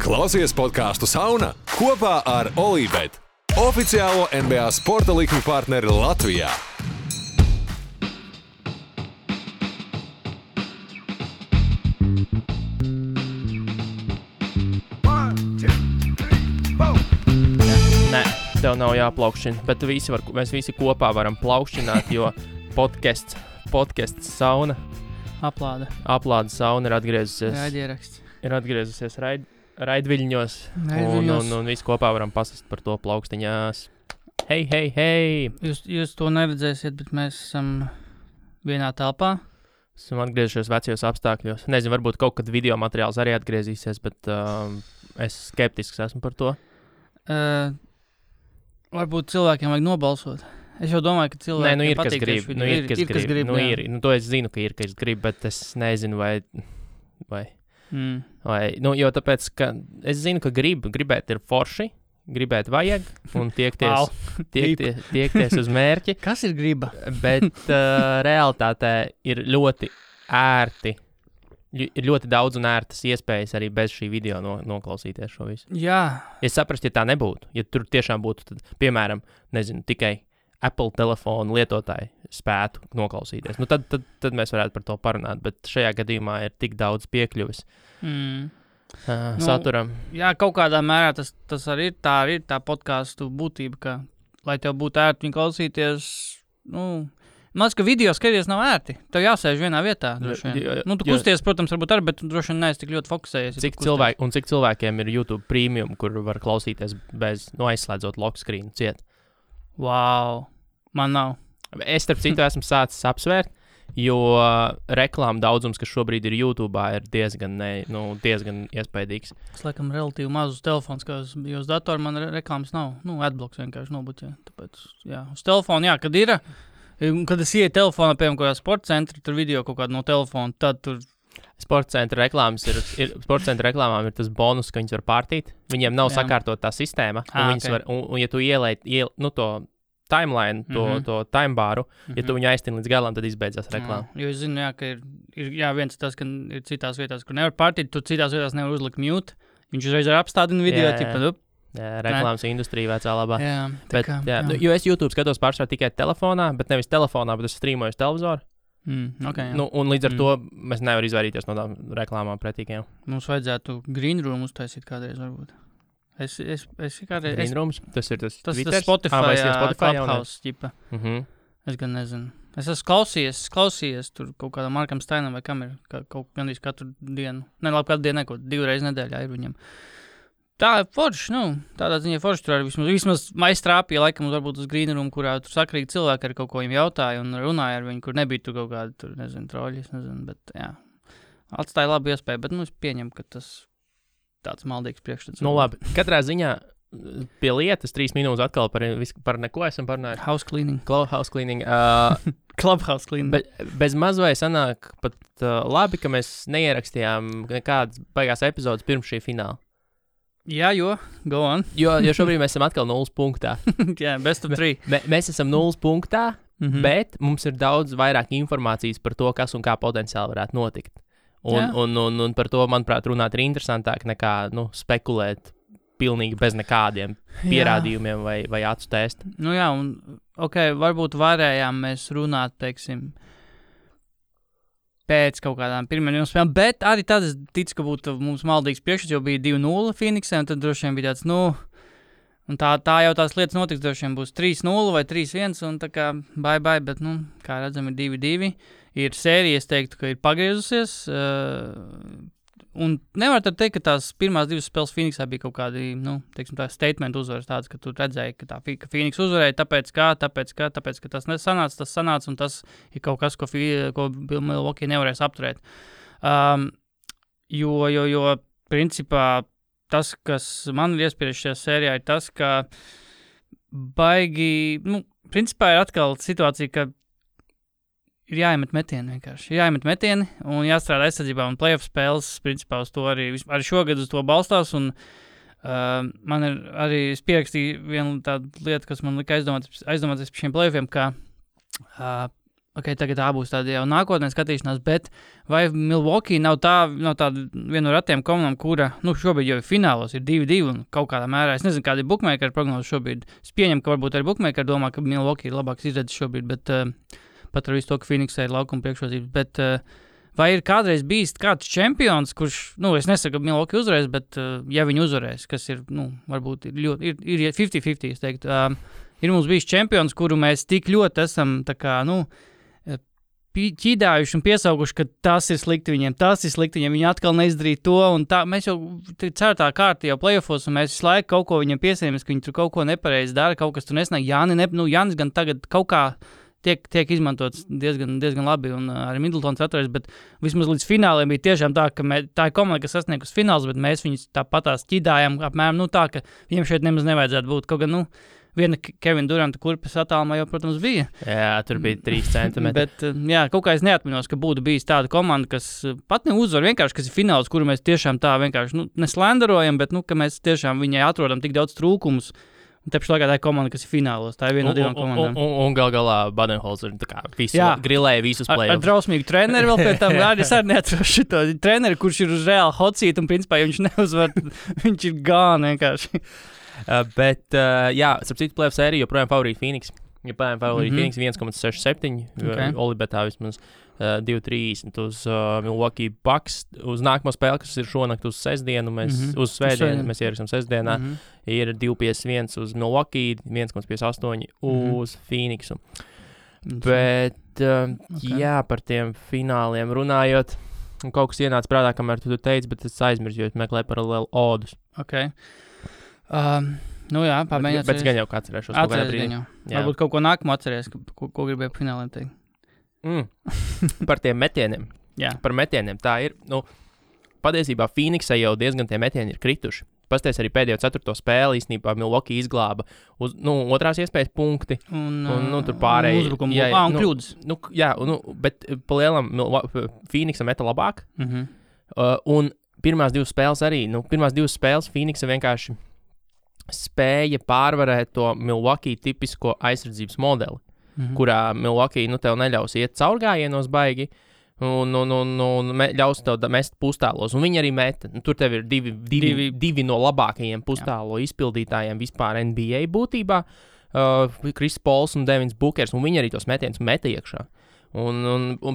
Klausies podcastu Sauna kopā ar Olībet, oficiālo NBA sporta likmi partneri Latvijā. Nē, tev nav jāplaukšķina, bet mēs visi kopā varam plaukšķināt, jo podcasts Sauna. Aplāde Sauna ir atgriezusies. Ir atgriezusies raidviļņos. Un visi kopā varam pasast par to plaukstiņās. Hei! Jūs to neredzēsiet, bet mēs esam vienā telpā. Esam atgriezušies vecajos apstākļos. Nezinu, varbūt kaut kad video materiāls arī atgriezīsies, bet es skeptisks esmu par to. Varbūt cilvēkiem vajag nobalsot. Es jau domāju, ka cilvēkiem patīk tieši video. Ir, kas grib. To es zinu, ka ir, kas grib, bet es nezinu, vai jo tāpēc, ka es zinu, ka gribēt ir forši, gribēt vajag un tiekties uz mērķi. Kas ir griba? Bet realitātē ir ļoti ērti. Ir ļoti daudz un ērtas iespējas arī bez šī video noklausīties šo visu. Jā. Es saprastu, ja tā nebūtu. Ja tur tiešām būtu, tad, piemēram, nezinu, tikai Apple telefonu lietotāji spētu noklausīties. Tad mēs varētu par to parunāt, bet šajā gadījumā ir tik daudz piekļuvis saturam. Jā, kaut kādā mērā tas arī ir tā podcastu būtība, ka, lai tev būtu ērti viņu klausīties, maz, ka video skaties nav ērti. Tev jāsēž vienā vietā. Tu kusties, protams, varbūt arī, bet droši vien neesi tik ļoti fokusējies. Cik cilvēkiem ir YouTube Premium, kur var klausīties bez, aizslēdzot lock screen ciet? Wow, man nav. Es, starp citu, esmu sācis apsvērt, jo reklāma daudzums, kas šobrīd ir YouTube, ir diezgan iespaidīgs. Es laikam relatīvi mazus telefons, jo uz datoru man reklāmas nav. Adblocks vienkārši nobuķē. Tāpēc, jā, uz telefonu, kad es ieju telefonā, piemēram, kādā sporta centra, tur video kaut kādu no telefona, tad tur... Sporta centra reklāmām ir tas bonus, ka viņas var pārtīt. Viņiem nav sakārtot tā sistēma, un ja tu ielēji to timeline, to timebāru, ja tu viņu aiztini līdz galam, tad izbeidzās reklāma. Jo es zinu, ka ir viens tas, ka ir citās vietās, kur nevar pārtīt, tu citās vietās nevar uzlikt mute. Viņš uzreiz ar apstādina video, reklāmas industrija vecā labā. Jā. Jo es YouTube skatos pārsvarā tikai telefonā, bet nevis telefonā, bet es streamoju uz televizoru. Un līdz ar to mēs nevaram izvairīties no tām reklāmām pretīgiem. Mums vajadzētu green room uztaisīt kādreiz, varbūt. Es kādreiz... Green rooms? Tas ir tas Twitter? Tas Spotify Clubhouse ķipa. Es gan nezinu. Es esmu klausījies tur kaut kādam Markam Steinam vai kam ir gandrīz katru dienu. Katru dienu, 2 reizes nedēļā ir viņam. Tā ir forši, tādā ziņā forši tur arī vismaz maistrāpīja laikam varbūt uz green room, kurā tur sakrīgi cilvēki ar kaut ko viņam jautāja un runāja ar viņu, kur nebija tur kaut kādi, troļi, bet jā. Atstāja labu iespēju, bet es pieņemu, ka tas tāds maldīgs priekšstats. Labi, katrā ziņā pie lietas 3 minūtes atkal par neko esam parunājuši. House cleaning. Clubhouse cleaning. Bez mazvai sanāk pat labi, ka mēs neierakstījām nekādas baigās epizodes pirms šī fināla. Jā, go on. jo šobrīd mēs esam atkal 0 punktā. Jā, best of 3. Mēs esam 0 punktā, bet mums ir daudz vairāk informācijas par to, kas un kā potenciāli varētu notikt. Un par to, manuprāt, runāt ir interesantāk nekā spekulēt pilnīgi bez nekādiem pierādījumiem vai acu test. Varbūt varējām mēs runāt, teiksim, pēc kaut kādām pirmajām spēlēm, bet arī tad es ticu, ka būtu mums maldīgs priekšstats, jo bija 2-0 Phoenixē, un tad droši vien bija tāds, un tā jau tās lietas notiks, droši vien būs 3-0 vai 3-1, un tā kā bye, bet, kā redzam, ir 2-2. Ir sērija, es teiktu, ka ir pagriezusies, un nevar tad teikt, ka tās pirmās 2 spēles Phoenixā bija kaut kādi, tā statement uzvaras tāds, ka tu redzēji, ka Phoenix uzvarēja, tāpēc, ka tas sanāca, un tas ir kaut kas, ko Milwaukee nevarēs apturēt. Jo principā tas, kas man ir iespieris šajā sērijā, ir tas, ka principā ir atkal situācija, ka ir jāiemet metieni vienkārši. Jāiemet metieni un jāstrādā aizsardzībā un playoff spēles, principā uz to arī šogad uz to balstās un man ir arī pierakstīja viena tāda lieta, kas man lika aizdomāties par šiem playoffiem, ka Okay, tagad tā būs tāda jau nākotnē skatīšanās, bet vai Milwaukee nav tāda viena no ratiem komandām, kura, šobrīd jau ir finālos, ir 2-2 un kaut kādā mērā, es nezinu, kāda ir bookmaker prognoze šobrīd. Es pieņemu, ka varbūt arī bookmaker domā, ka Milwaukee ir labāks izredzes šobrīd, bet pat ar visu to, ka Phoenixai ir laukuma priekšrocības, bet vai ir kādreiz bijis kāds čempions, kurš, es nesaku, ka Milwaukee uzvarēs, bet ja viņi uzvarēs, kas ir, varbūt ir 50-50, es teiktu, ir mums bijis čempions, kuru mēs tik ļoti esam, tā kā, ķīdājuši un piesauguši, ka tas ir slikti viņiem, viņi atkal neizdarīja to, un tā, mēs jau ceturtā kārta jau playoffos, un mēs visu laiku kaut ko viņiem piesējamies, ka viņi tur kaut ko nepareizi dara, kaut kas tur nesnāk. Jānis gan tagad kaut kā tiek izmantots diezgan labi, un arī Middletons atveries, bet vismaz līdz fināliem bija tiešām tā, ka tā ir komanda, kas sasniegus fināls, bet mēs viņus tāpatās ķīdājām apmēram, tā, ka viņiem šeit nemaz nevajadzētu būt, kaut gan, viena Kevina Duranta kurpes attālumā jau, protams, bija. Jā, tur bija 3 centimetri. Bet, kaut kā es neatminos, ka būtu bijis tāda komanda, kas pat neuzvar, vienkārši, kas ir fināls, kuru mēs tiešām tā vienkārši, neslenderojam, bet, ka mēs tiešām viņai atrodam tik daudz trūkumus. Un te pašā laikā tā ir komanda, kas ir finālos. Tā ir viena no 2 komandām. Un galā Badenholzer grilēja visus play-offs. Ar drausmīgu treneri vēl pēc tam. Es arī neatrošu šito treneri, kurš ir uz reāli hot seat, un principā, ja viņš neuzvar, viņš ir gāni vienkārši. Starp citu play-off sēriju joprojām favorīti Phoenix. Phoenix 1,67, Olibetā vismaz 2,30 uz Milwaukee Bucks. Uz nākamo spēli, kas ir šonakt uz sestdienu, uz svētdienu, mēs ierakstām sestdienā, ir 2,51 uz Milwaukee, 1,58 uz Phoenixu. Bet, par tiem fināliem runājot, kaut kas ienāca prātā, kamēr tu teici, bet es aizmirsu, jo es meklēju paralēli odus. Pamēģināt. Bet gan jau kā atcerēšos. Varbūt kaut ko nākamo atceries, ko gribēju fināliem teikt. Par tiem metieniem. Par metieniem. Tā ir, patiesībā Phoenixai jau diezgan tie metieni ir krituši. Pasties arī pēdējo 4. spēli īstenībā Milwaukee izglāba uz, otrās iespējas punkti. Un tur pārēji. Uzbrukumu. Un kļūdas. Bet pa lielam Phoenixa meta labāk. Un pirmās 2 spēles arī, pirmās 2 spēles Phoenixa vienkārši spēja pārvarēt to Milwaukee tipisko aizsardzības modeli, kurā Milwaukee, tev neļaus iet caurgājienos baigi un ļaus tev mest pustālos. Un viņi arī meta. Tur tev ir divi no labākajiem pustālo izpildītājiem vispār NBA būtībā. Chris Pauls un Devins Bookers, un viņi arī tos metienus meta iekšā.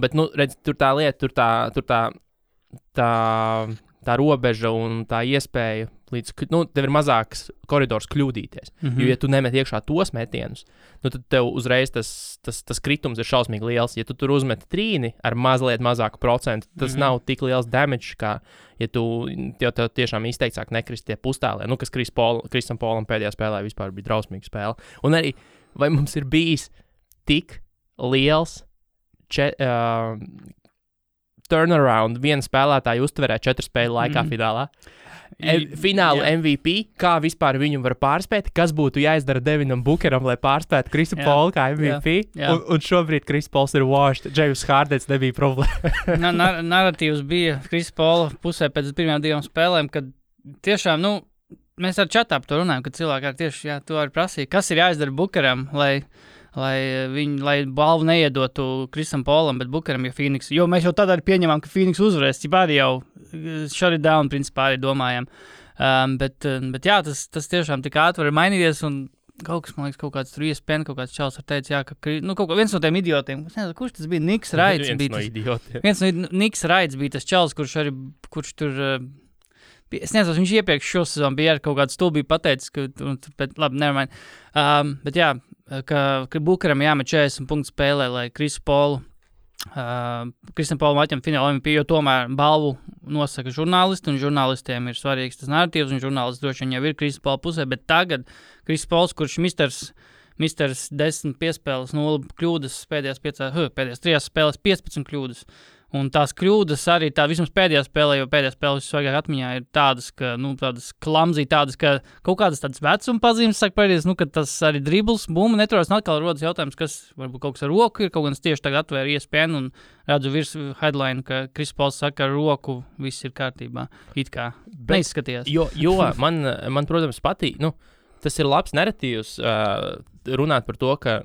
Bet, redz, tur tā lieta, tur tā robeža un tā iespēja, tev ir mazāks koridors kļūdīties. Jo, ja tu nemet iekšā tos metienus, tad tev uzreiz tas kritums ir šausmīgi liels. Ja tu tur uzmeti trīni ar mazliet mazāku procentu, tas nav tik liels damage, kā ja tev tiešām izteicāk nekrist tie pustālē. Kas Krisam Paulam pēdējā spēlē vispār bija drausmīga spēle. Un arī, vai mums ir bijis tik liels turnaround viena spēlētāja uztverē 4 spēļu laikā finālā. Fināla MVP, kā vispār viņu var pārspēt, kas būtu jāizdara Devinam Bookeram, lai pārspētu Krisu Paulu kā MVP. Un šobrīd Chris Pauls ir washed. James Hardens nebija problēma. Narratīvs bija Krisa Paula pusē pēc pirmajām 2 spēlēm, kad tiešām, mēs ar čatā par to runājam, kad cilvēki arī tieši to arī prasīja, kas ir jāizdara Bookeram, lai balvu neiedotu Krisam Paulam, bet Bookeram, ja Phoenix. Jo mēs jau tad arī pieņemam, ka Phoenix uzvarēs, cip arī jau shut it down, principā arī domājam. Bet jā, tas tiešām tik ātri var mainīties, un kaut kas, man liekas, kaut kāds tur ESPN, kaut kāds čals var teikt, viens no tiem idiotiem, kurš tas bija, Niks Raids. Viens no Niks Raids bija tas čals, kurš tur... Es nezinu, viņš iepriekš šo sezonu bija ar kaut kādu stulbību pateicis, labi, nevermind. Bet jā, ka Bookeram jāmet 40 punktu spēlē, lai Krisam Paulam atņem fināla MVP, jo tomēr balvu nosaka žurnālisti, un žurnālistiem ir svarīgs tas narratīvs, un žurnālisti droši vien jau ir Krisam Paula pusē, bet tagad Krisam Pauls, kurš misters 10 piespēles, 0 kļūdas, pēdējās 3 spēles 15 kļūdas. Un tās kļūdas arī vismaz pēdējā spēlē, jo pēdējā spēle visvairāk atmiņā ir tādas, ka, tādas klamzī, tādas, ka kaut kādas tādas vecuma pazīmes sāk pēdējās, ka tas arī dribbles, bumba neturās, un atkal rodas jautājums, kas varbūt kaut kas ar roku ir, kaut gan es tieši tagad atvēru ESPN un redzu virs headline, ka Chris Pauls saka, ar roku viss ir kārtībā. It kā neizskatījās. Jo man, protams, patīk, tas ir labs narratīvs runāt par to, ka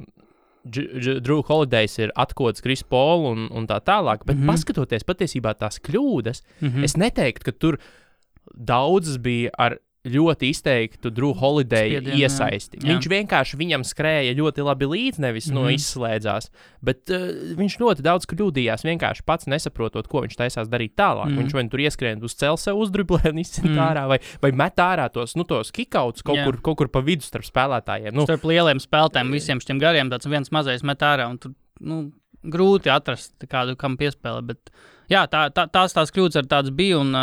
Drew Holidays ir atkods Chris Paul un tā tālāk, bet paskatoties patiesībā tās kļūdas, es neteiktu, ka tur daudzas bija ar ļoti izteiktu Drew Holiday iesaisti. Jā. Viņš vienkārši viņam skrēja ļoti labi līdzi, nevis izslēdzās, bet viņš ļoti daudz kļūdījās, vienkārši pats nesaprotot, ko viņš taisās darīt tālāk. Viņš vai tur ieskrien uz cel sev uzdriblē un izcent ārā, vai met ārā tos kickouts kaut kur pa vidu starp spēlētājiem. Starp lieliem spēlētājiem, visiem šiem gariem, tāds viens mazais met ārā, un tur grūti atrast kādu, kam piespēlē, bet jā, tās kļūdas ar tādas bija, un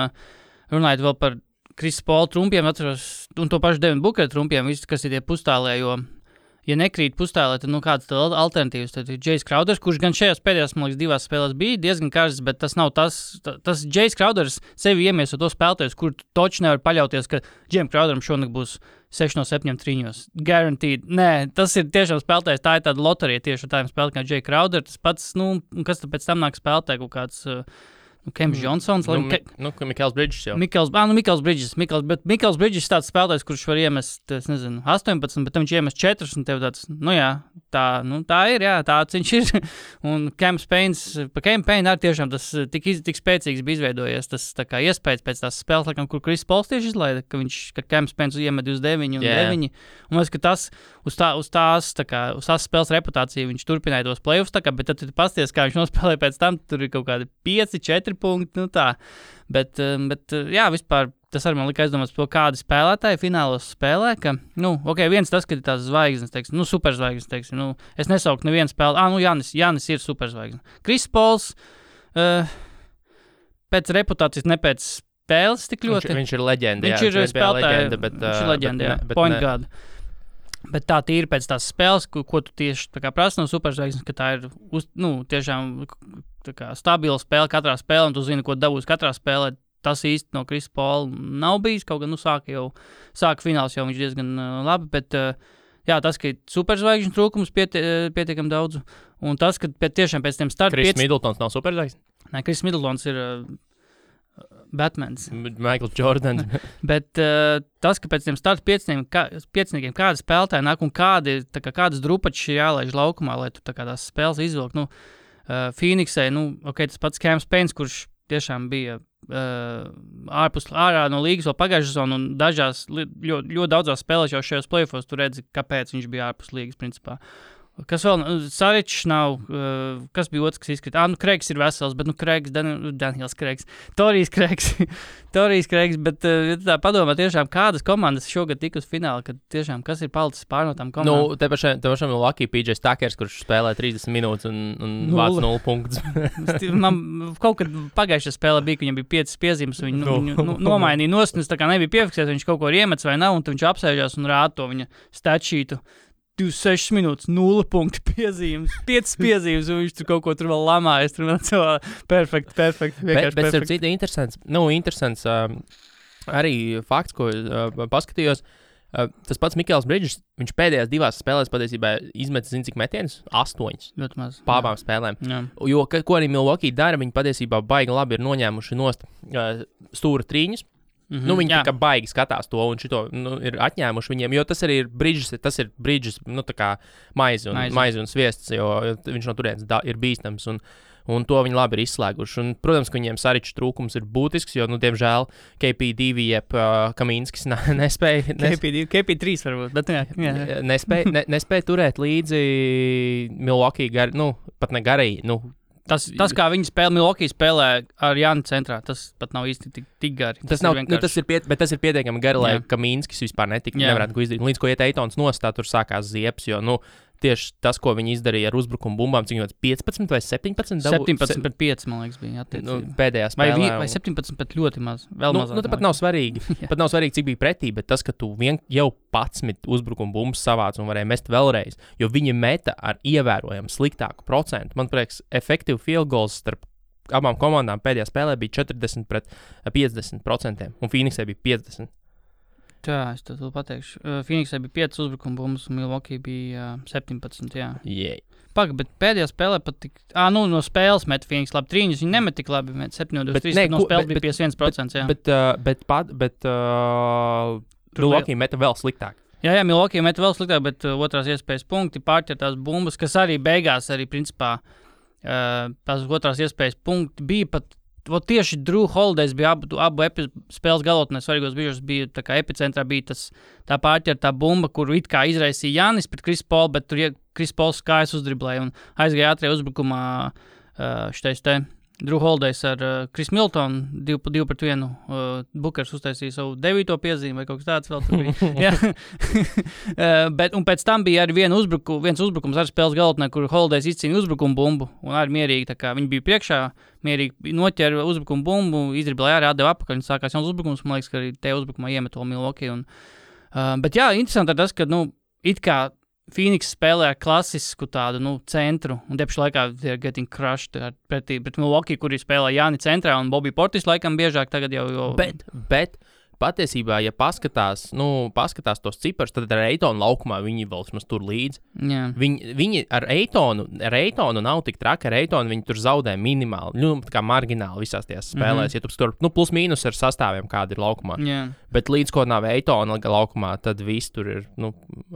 runājot vēl par Chris Paul trumpiem, atceros, un to pašu Devin Booker trumpiem, viss, kas ir tie pustālē, jo, ja nekrīt pustālē, tad, kādas tad alternatīvas, tad ir Jace Crowders, kurš gan šajās pēdējās, man liekas, 2 spēlēs bija diezgan karsts, bet tas nav tas Jace Crowders sevi iemieso to spēlētājus, kur toči nevar paļauties, ka Jim Crowderam šonakt būs 6 no 7 trīņos. Guaranteed. Nē, tas ir tiešām spēlētājs, tā ir tāda loterija tieši ar tādiem spēlētājiem kā Jay Crowder, tas pats, kas tad pēc tam nāk spēlētāji kaut kāds... Kems Johnsons. Mikls Bridges jau. Mikls Bridges. Bet Mikls Bridges ir tāds spēlētājs, kurš var iemest, 18, bet viņš iemest 4, un tev tāds, tā ir, jā, tāds viņš ir. Un Cam Payne arī tiešām tas tik spēcīgs bija izveidojies, tas tā kā iespējas pēc tās spēles, laikam, kur Chris Pauls tieši izlaida, ka Cam Payne iemet 29 un 9. Un es, ka tas uz tās spēles reputāciju viņš turpināja tos playoffs, bet tad tu pasties, kā viņš nospēlēja pēc tam, tur ir kaut kādi 5-4 punkti, tā. Bet jā, vispār tas arī man lika aizdomāt par to, kādi spēlētāji finālos spēlē, ka, viens tas, ka ir tās zvaigznes, teiksim, superzvaigznes, teiksim, es nesauktu nevienu spēli, Jānis ir superzvaigznes. Chris Pauls, pēc reputācijas, ne pēc spēles tik ļoti. Viņš ir leģenda, viņš ir spēlētāji, viņš ir leģenda, jā, point guard. Bet tā ir pēc tās spēles, ko tu tieši prasa no superzvaigznes, ka tā ir tiešām stabila spēle katrā spēlē, un tu zini, ko dabūs katrā spēlē. Tas īsti no Chris Paula nav bijis, kaut gan sāka fināls jau viņš diezgan labi, bet jā, tas, ka ir superzvaigžņu trūkums pietiekam daudz, un tas, ka tiešām pēc tiem starta... Chris Middletons nav superzvaigžņu? Nē, Chris Middletons ir... Batmans. Michael Jordans. Bet tas, ka pēc tiem starta pieciniekiem kādi spēlētāji nāk un kādas drupačas ir jālaiž laukumā, lai tu tās spēles izvilkt. Phoenixai, tas pats Cam Payne, kurš tiešām bija ārā no līgas vēl pagājušā sezonā, un dažās, ļoti daudzās spēlēs jau šajos playoffos tu redzi, kāpēc viņš bija ārpus līgas, principā. Kas vēl? Saričs nav. Kas bija otrs, kas izkrita? Kreigs ir vesels, bet Kreigs, Daniels Kreigs. Torijs Kreigs, bet tā padomā tiešām, kādas komandas šogad tika uz finālu, kad tiešām, kas ir palicis pār no tām komandām? Te pašam ir Lucky PJ Tuckers, kurš spēlē 30 minūtes un vāc 0 punktus. Man kaut kad pagājušajā spēlē bija, ka viņam bija 5 piezīmes, viņu nomainīja nost, un es tā kā nebija piefiksēts, viņš kaut ko ir iemets vai nav, un tad viņš apsēžās un rāda to viņa statsheetu. 26 minūtes, 0 punktu piezīmes, 5 piezīmes, un viņš tur kaut ko tur vēl lamājas. Tur vēl cilvēki perfekti. Bet starp citu interesants arī fakts, ko paskatījos. Tas pats Mikls Bridges, viņš pēdējās 2 spēlēs patiesībā izmetis, cik metienus? 8. Ļoti maz. Pārbām spēlēm. Jā. Jo, ko arī Milwaukee dara, viņi patiesībā baigi labi ir noņēmuši nost stūra trīņus. Viņi tā kā baigi skatās to un šito ir atņēmuši viņiem, jo tas arī ir Bridges, tā kā maizi un sviests, jo viņš no turienes ir bīstams un to viņi labi ir izslēguši. Un, protams, ka viņiem Saričs trūkums ir būtisks, jo, diemžēl, KP2 jeb Kaminskis nespēja... KP3 varbūt, bet jā. Nespēja turēt līdzi Milwaukee pat ne garīgi, Tas, kā viņi spēlē, Milwaukee spēlē ar Jāni centrā, tas pat nav īsti tik gari. Tas ir pietiekami gari, lai Kaminskis vispār nevarētu ko izdarīt. Līdz ko iet Eitons nostā, tur sākās ziepes, jo, tieši tas, ko viņi izdarīja ar uzbrukumu bumbām, cik viņam 15 vai 17? 17 pret 5, man liekas, bija attiecīgi. Pēdējā spēlē. Vai 17 pret ļoti maz, vēl mazāk. Tāpat nav svarīgi. Pat nav svarīgi, cik bija pretī, bet tas, ka tu jau 11 uzbrukumu bumbas savāc un varēja mest vēlreiz, jo viņi meta ar ievērojumu sliktāku procentu. Man prieks, efektīvi field goals starp abām komandām pēdējā spēlē bija 40 pret 50%, un Phoenixai bija 50%. Jā, es to pateikšu. Phoenixai bija 5 uzbrukumu bumbas, un Milwaukee bija 17, jā. Yeah. Bet pēdējā spēlē pat tik... no spēles met Phoenix labi trīņus, viņi nemet tik labi, met 7-23, no spēles bija 51%, jā. Bet Milwaukee meta vēl sliktāk. Jā, Milwaukee met vēl sliktāk, bet otrās iespējas punkti pārķer tās bumbas, kas arī beigās arī principā tās otrās iespējas punkti bija pat, tieši Drew Holidays bija abu spēles galotnē svarīgos brīžos, bija tā kā epicentrā bija tā pārķer tā bumba, kuru it kā izraisīja Jānis pret Chris Paul, bet tur Chris Pauls kājas uzdriblēja un aizgāja ātrie uzbrukumā šitais te Drew Holidays ar Chris Miltonu 2-1. Bukers uztaisīja savu 9. piezīmi vai kaut kas tāds vēl tur bija. Un pēc tam bija arī viens uzbrukums ar spēles galotnē, kur Holidays izcīnīja uzbrukumu bumbu un arī mierīgi, tā kā viņi bija priekšā, mierīgi noķēra uzbrukumu bumbu, izdriblēja arī atdeva apakaļ un sākās jauns uzbrukums, man liekas, ka arī te uzbrukumā iemet to Milwaukee. Bet jā, interesanti ir tas, ka, it kā Phoenix spēlē ar klasisku tādu, centru, un tieši laikā they're getting crushed pret Milwaukee, kuri spēlē Jāni centrā, un Bobby Portis laikam biežāk tagad jau... Bet patiesībā, ja paskatās tos ciparus, tad ar Eitonu laukumā viņi vēl vismaz tur līdzi. Yeah. Viņi ar Eitonu nav tik traki, ar Eitonu viņi tur zaudē minimāli, tā kā margināli visās tajās spēlēs, ja tu tur, plus mīnus ar sastāviem, kādi ir laukumā. Yeah. Bet līdz ko nav Eitona laukumā, tad viss tur ir,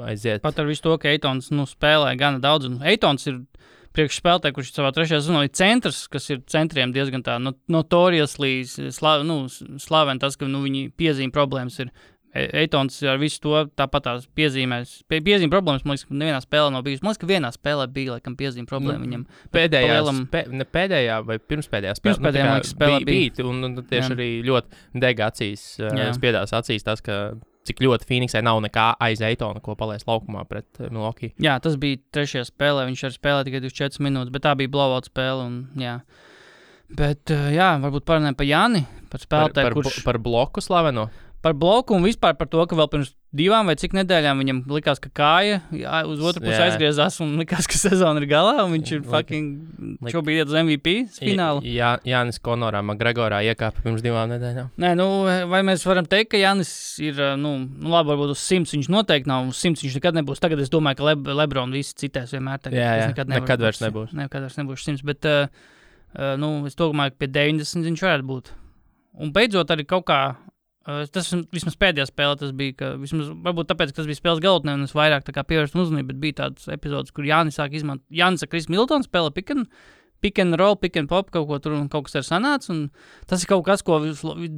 aiziet. Pat ar visu to, ka Eitons, spēlē gana daudz, un Eitons ir priekšspēlētāji, kurš savā trešajā sezonā ir centrs, kas ir centriem diezgan tā notoriously slaven tas, ka viņi piezīme problēmas ir. Eitons ar visu to tāpat tās piezīmēs. Piezīme problēmas, man liekas, ka nevienā spēlē nav bijusi. Man liekas, ka vienā spēlē bija, laikam, piezīme problēma viņam. Pēdējā vai pirmspēdējā spēlē. Pirmspēdējā, man liekas, spēlē bija. Un tieši arī ļoti dega acīs, spiedās acīs tas, ka cik ļoti Phoenixai nav nekā aiz Eitona, ko palaist laukumā pret Milwaukee. Jā, tas bija trešajā spēlē, viņš arī spēlēja tikai 24 minūtes, bet tā bija blowout spēle, un jā. Bet, varbūt parunājam par Jāni, par spēlētāju, kurš... Par bloku slaveno? Par bloku un vispār par to, ka vēl pirms 2 vai cik nedēļām viņam likās, ka kāja uz otru pusi aizgriezās un likās, ka sezona ir galā, un viņš ir fucking šobrīd iet uz MVP finālu. Jānis Konorā Magregorā iekāpa pirms 2 nedēļām. Nē, vai mēs varam teikt, ka Jānis ir, labi, varbūt uz 100 viņš noteikti nav, uz 100 viņš nekad nebūs. Tagad es domāju, ka Lebron visi citēs vienmēr. Nekad vairs nebūs. Nekad vairs nebūs 100, bet, es domāju, ka pie 90 viņš varētu būt. Un beidzot arī kaut kā, tas vismaz pēdējā spēlē tas bija, ka vismaz, varbūt tāpēc, ka tas bija spēles galotnē, un es vairāk tā kā pievērstu uzmanību, bet bija tāds epizodes, kur Jānis sāk izmantot, Jānis ar Chris Miltonu spēlē pick and roll, pick and pop, kaut ko tur un kaut kas ir sanāca, un tas ir kaut kas, ko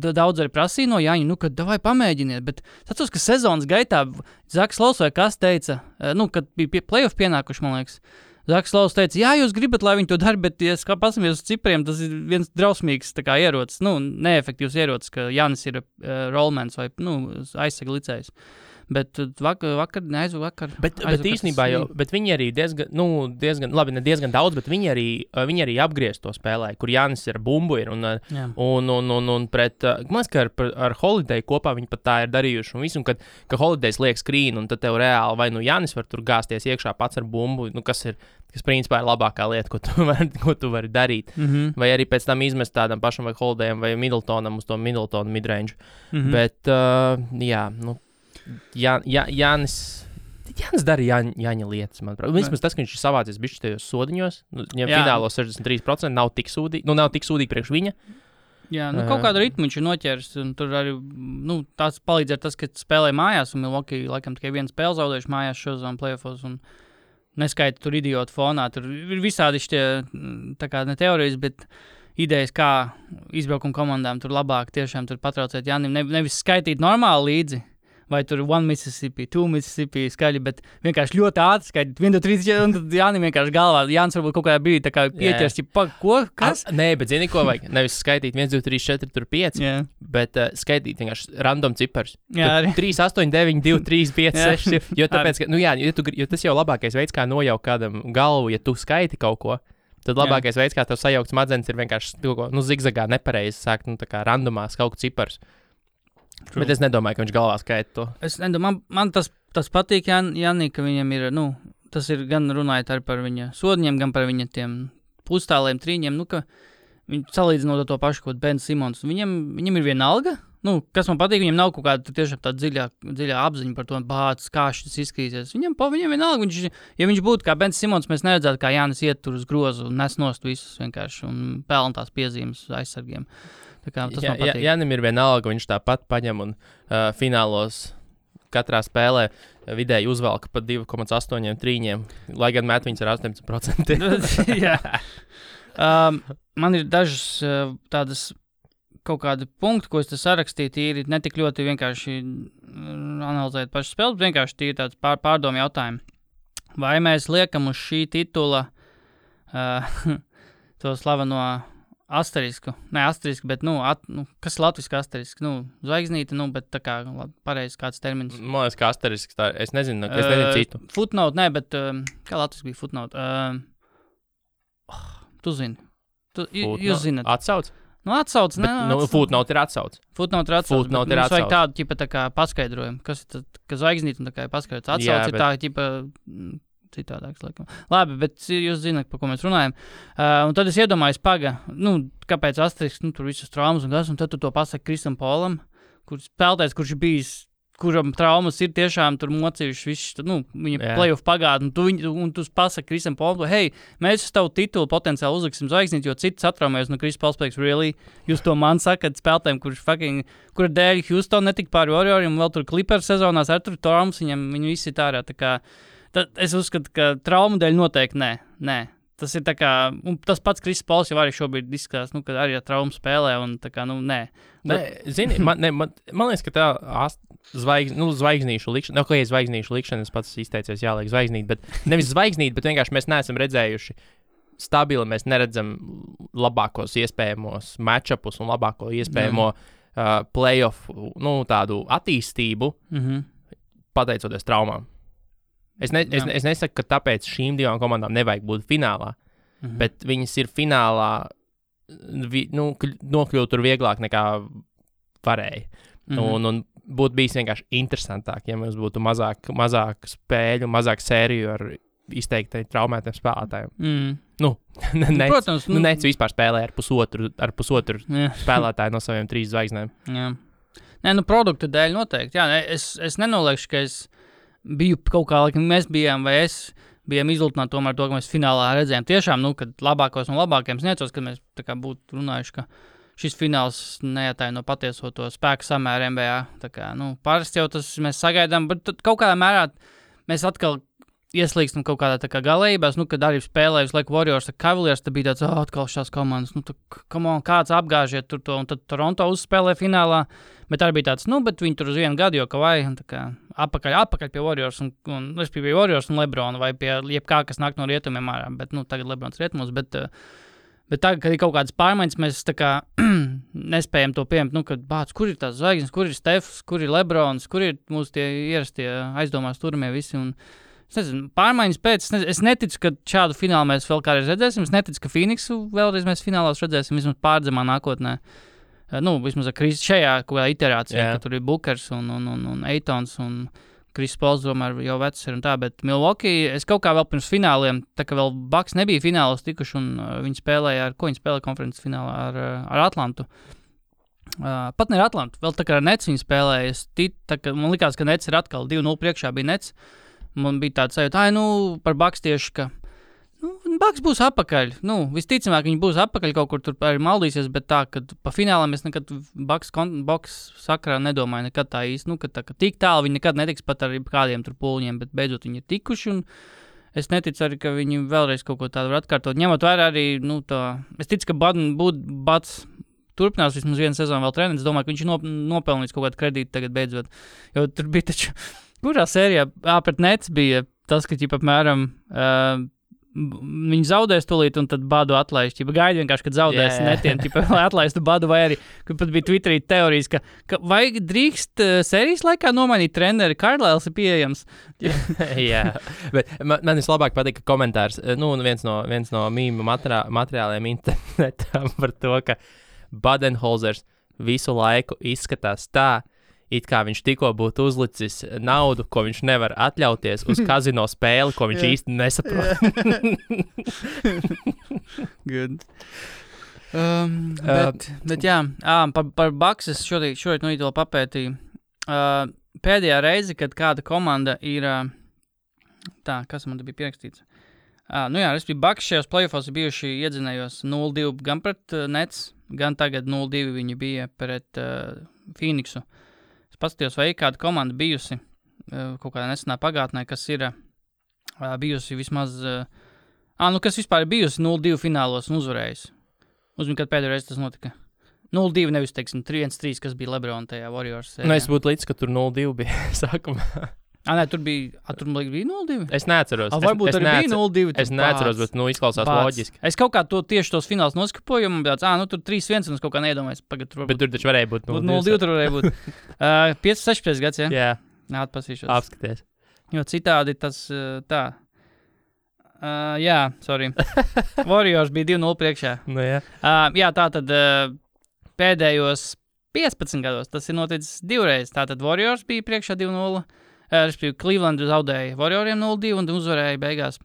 daudz arī prasīja no Jāņa, kad davai pamēģiniet, bet tas, ka sezonas gaitā Zaks Laus vai kas teica, kad bija playoff pienākuši, man liekas, Zaks Laus teica, jā, jūs gribat, lai viņi to dara, bet, ja pasamies uz cipriem, tas ir viens drausmīgs tā kā ierocis, neefektīvs ierocis, ka Jānis ir rollmans vai, aizsega licējs. Bet vakar. Bet īstenībā jau, bet viņi arī diezgan, labi, ne diezgan daudz, bet viņi arī apgriezt to spēlē, kur Jānis ir bumbu ir, un pret, man liekas, ka ar Holiday kopā viņi pat tā ir darījuši, un visu, un kad Holidays liek skrīnu, un tad tev reāli, vai Jānis var tur gāzties iekšā pats ar bumbu, kas principā ir labākā lieta, ko tu vari darīt, vai arī pēc tam izmest tādam pašam vai Holidayam vai Middletonam uz to Middletonu midrange, bet, Jānis dara Jāņa lietas, manuprāt. Vismaz tas, ka viņš ir savācies bišķi tajos sodiņos, viņam finālo 63% nav tik sūdīgi priekš viņa. Jā, kaut kādu ritmu viņš ir noķēris, un tur arī, tās palīdz ar tas, ka spēlē mājās, un Milwaukee laikam tikai vienu spēli zaudējuši mājās šozām playoffos, un neskaita tur idiotu fonā, tur ir visādi šitie, tā kā ne teorijas, bet idejas, kā izbraukuma komandām tur labāk tiešām tur patraucēt Jānim, nevis skaitīt normāli līdzi, vai tur 1 Mississippi, 2 Mississippi skaļi, bet vienkārši ļoti ātri skaidīt 1, 2, 3, 4, un tad Jānim vienkārši galvā. Jānis varbūt kaut kādā brīdī tā kā pieķers, ko, kas? Nē, bet zini, ko vajag? Nevis skaitīt 1, 2, 3, 4, tur 5, bet skaitīt vienkārši random cipars. Jā, arī. 3, 8, 9, 2, 3, 5, 6, jo tāpēc, ka, jo tas jau labākais veids, kā nojaukt kādam galvu, ja tu skaiti kaut ko. Tad labākais veids, kā tev sajaukt smadzenes, ir vienkārši zigzagā nepareizi sākt, tā kā randomās kaut ko cipars. True. Bet es nedomāju, ka viņš galvā skaita to. Es nedomāju, man tas patīk, Jānī, ka viņam ir, tas ir gan runājot arī par viņa sodņiem, gan par viņa tiem pustāliem, trīņiem, ka viņi salīdzinot to pašu, ko Ben Simons. Viņam ir viena alga, kas man patīk, viņam nav kaut kāda tiešām tāda dziļā apziņa par to, kā šis izskatīsies. Viņam viena alga, ja viņš būtu kā Ben Simons, mēs neredzētu, kā Jānis iet tur uz grozu un nes nost visus vienkārši un pelna tās piezīmes aizsargiem. Tas man patīk. Jānim ir viena alga, viņš tāpat paņem un finālos katrā spēlē vidēji uzvelka pa 2,8 trīņiem, lai gan met viņas ar 18%. Jā. Man ir dažas tādas kaut kādi punkti, ko es te sarakstīju, tīri ne tik ļoti vienkārši analizēt pašu spēli, bet vienkārši tīri tāds pārdomu jautājumi. Vai mēs liekam uz šī titula to slaveno asterisku? Ne asterisku, bet, kas ir latviski asterisks? Zvaigznīte, bet tā kā pareizi kāds termins. Man liekas, ka asterisks, es nezinu citu. Footnote, ne, bet kā latviski bija footnote? Tu zini. Jūs zināt. Atsauc? Atsauc, ne? Footnote ir atsauc. Footnote ir atsauc. Mums vajag tādu, ķipa, tā kā paskaidrojumu. Kas ir tad, ka zvaigznīt un tā kā paskaidrots. Atsauc ir tā, ķipa, citādāks, laikam. Labi, bet jūs zināt, par ko mēs runājam. Un tad es iedomājos, kāpēc asterisks, tur visas traumas un tad tu to pasaki Krisam Polam, kurš spēlētājs, kurš ir bijis, kuram traumas ir tiešām tur mocījušas visu, viņa playoff pagātni, un tu pasaki Krisam Polam, hei, mēs uz tavu titulu potenciāli uzliksim zvaigznīt, jo cits atraumējas no Kris Pols pēc, really, jūs to man sakat spēlētājiem, kura dēļ Houston netika pāri Warrioriem, un vēl tur Clippers sezonās ar tur traumas, viņi visi ir ārā, tā kā, es uzskatu, ka traumu dēļ noteikti nē. Tas ir tā kā, un tas pats Kris Pols jau arī šobrīd izskatās, ka arī ar traumu spēlē, un tā kā, nē. Zini, man liekas, ka tā zvaigznīšu likšana, zvaigznīšu likšana, es pats izteicies jāliek zvaigznīt, bet nevis zvaigznīt, bet vienkārši mēs neesam redzējuši stabili, mēs neredzam labākos iespējamos matchupus un labāko iespējamo playoff, tādu attīstību, pateicoties traumām. Es nesaku, ka tāpēc šīm divām komandām nevajag būt finālā, bet viņas ir finālā, nokļūt tur vieglāk nekā varēja. Un būtu bijis vienkārši interesantāk, ja mums būtu mazāk spēļu, mazāk sēriju ar izteikti traumētiem spēlētājiem. Protams. Nec vispār spēlē ar pusotru spēlētāju no saviem 3 zvaigznēm. Jā. Nē, produktu dēļ noteikti. Jā, es nenoliekšu, ka es biju kaut kā, laikam mēs bijām, vai es bijām izlutināti tomēr to, ka mēs finālā redzējām tiešām, kad labākos un labākiem sniecos, kad mēs tā kā būtu runājuši, ka šis fināls neatāja no patieso to spēku samēru NBA. Tā kā, parasti jau tas mēs sagaidām, bet kaut kādā mērā mēs atkal ieslīgstam kaut kādā tā kā galējībās, kad arī spēlēja visu laiku Warriors ar Cavaliers, tad bija tāds, atkal šās komandas, kāds apgāžiet tur to, un tad Toronto uzspēlē finālā, bet arī bija tāds, bet viņi tur uz 1 gadu jau kavai, un tā kā apakaļ pie Warriors, un pie Warriors un Lebrona, vai pie jebkā, kas nāk no rietumiem ārā, bet, tagad Lebrons rietumos, bet tagad, kad ir kaut kādas pārmaiņas, mēs tā kā nespējam to pieņemt, kad kur ir tās zvaigznes, kur ir Stefs, kur ir Lebrons, kur ir mūsu tie ierastie aizdomās turamie visi, un es nezinu, pārmaiņas pēc, es neticu, ka šādu finālu mēs vēl kādreiz redzēsim, es neticu, ka Phoenixu vēlreiz mēs finālās redzēsim, vismaz pārdzemā nākotnē. Vismaz ar Kris šajā kaut kādā iterācijā, ka tur ir Bookers un Eitons un Kris Pols, domāju, jau vecs ir un tā, bet Milwaukee, es kaut kā vēl pirms fināliem, tā kā vēl Bucks nebija finālos tikuši, un viņi spēlēja viņi spēlēja konferences finālā ar Atlantu. Pat ne ar Atlantu, vēl tā kā ar Nets viņi spēlēja, man likās, ka Nets ir atkal 2-0 priekšā bija Nets. Man bija tāds sajūta, par Bucks tieši, ka Bucks būs apakaļ. Visticamāk, viņi būs apakaļ kaut kur tur arī maldīsies, bet tā, ka pa finālām es nekad Bucks sakrā nedomāju nekad tā īsti, ka tik tālu viņi nekad netiks pat ar kādiem tur pūliņiem, bet beidzot viņi ir tikuši, un es neticu arī, ka viņi vēlreiz kaut ko tādu var atkārtot. Ņemot vērā arī, es ticu, ka Buds turpinās vismaz 1 sezonu vēl treneris, domāju, ka viņš ir nopelnījis kaut kādu kredītu tagad beidzot, jo tur bija taču kurā sērijā pret Nets bija tas, ka apmēram viņi zaudēs tūlīt un tad Badu atlaiž. Gaidi vienkārši, kad zaudēs netien, lai atlaistu Badu, vai arī, kad pat bija Twitterī teorijas, ka vai drīkst sērijas laikā nomainīt treneri, Carlisles ir pieejams. Jā, bet man vislabāk patika komentārs, viens no mīmu materiāliem internetā par to, ka Budenholzers visu laiku izskatās tā, it kā viņš tikko būtu uzlicis naudu, ko viņš nevar atļauties uz kazino spēli, ko viņš īsti nesaprot. Good. Bet jā, par Bucks es šorīt no rīta vēl papētīju. Pēdējā reize, kad kāda komanda ir, kas man te bija pierakstīts? Respektīvi Bucks šajos playoffos bijuši iedzinējos 0-2 gan pret Nets, gan tagad 0-2 viņi bija pret Phoenixu. Es paskatījos, vai kāda komanda bijusi kaut kādā nesenā pagātnē, kas ir bijusi vismaz, kas vispār ir bijusi 0-2 finālos un uzvarējusi. Uzmini, kad pēdējo reizi tas notika. 0-2, nevis, teiksim, 3-1-3, kas bija LeBron tajā Warriors sērijā. Nu, es būtu līdz, ka tur 0-2 bija sākumā. Tur bija 0-2? Es neatceros. Varbūt arī bija 0-2. Es neatceros, bet izklausās loģiski. Es kaut kā tieši tos fināls noskapoju, un tāds, tur 3-1, un es kaut kā neiedomājos. Bet tur taču varēja būt 0-2. 0-2 tur varēja būt. 5-16 gads, ja? Jā. Atpasīšos. Apskaties. Jo citādi tas tā. Jā, sorry. Warriors bija 2-0 priekšā. Nu, jā. Jā, tā tad pēdējos 15 gados tas ir noticis divreiz. Tātad Warriors bija priekšā 2-0. Respektīvi, Cleveland zaudēja Warrioriem 0-2 un uzvarēja beigās.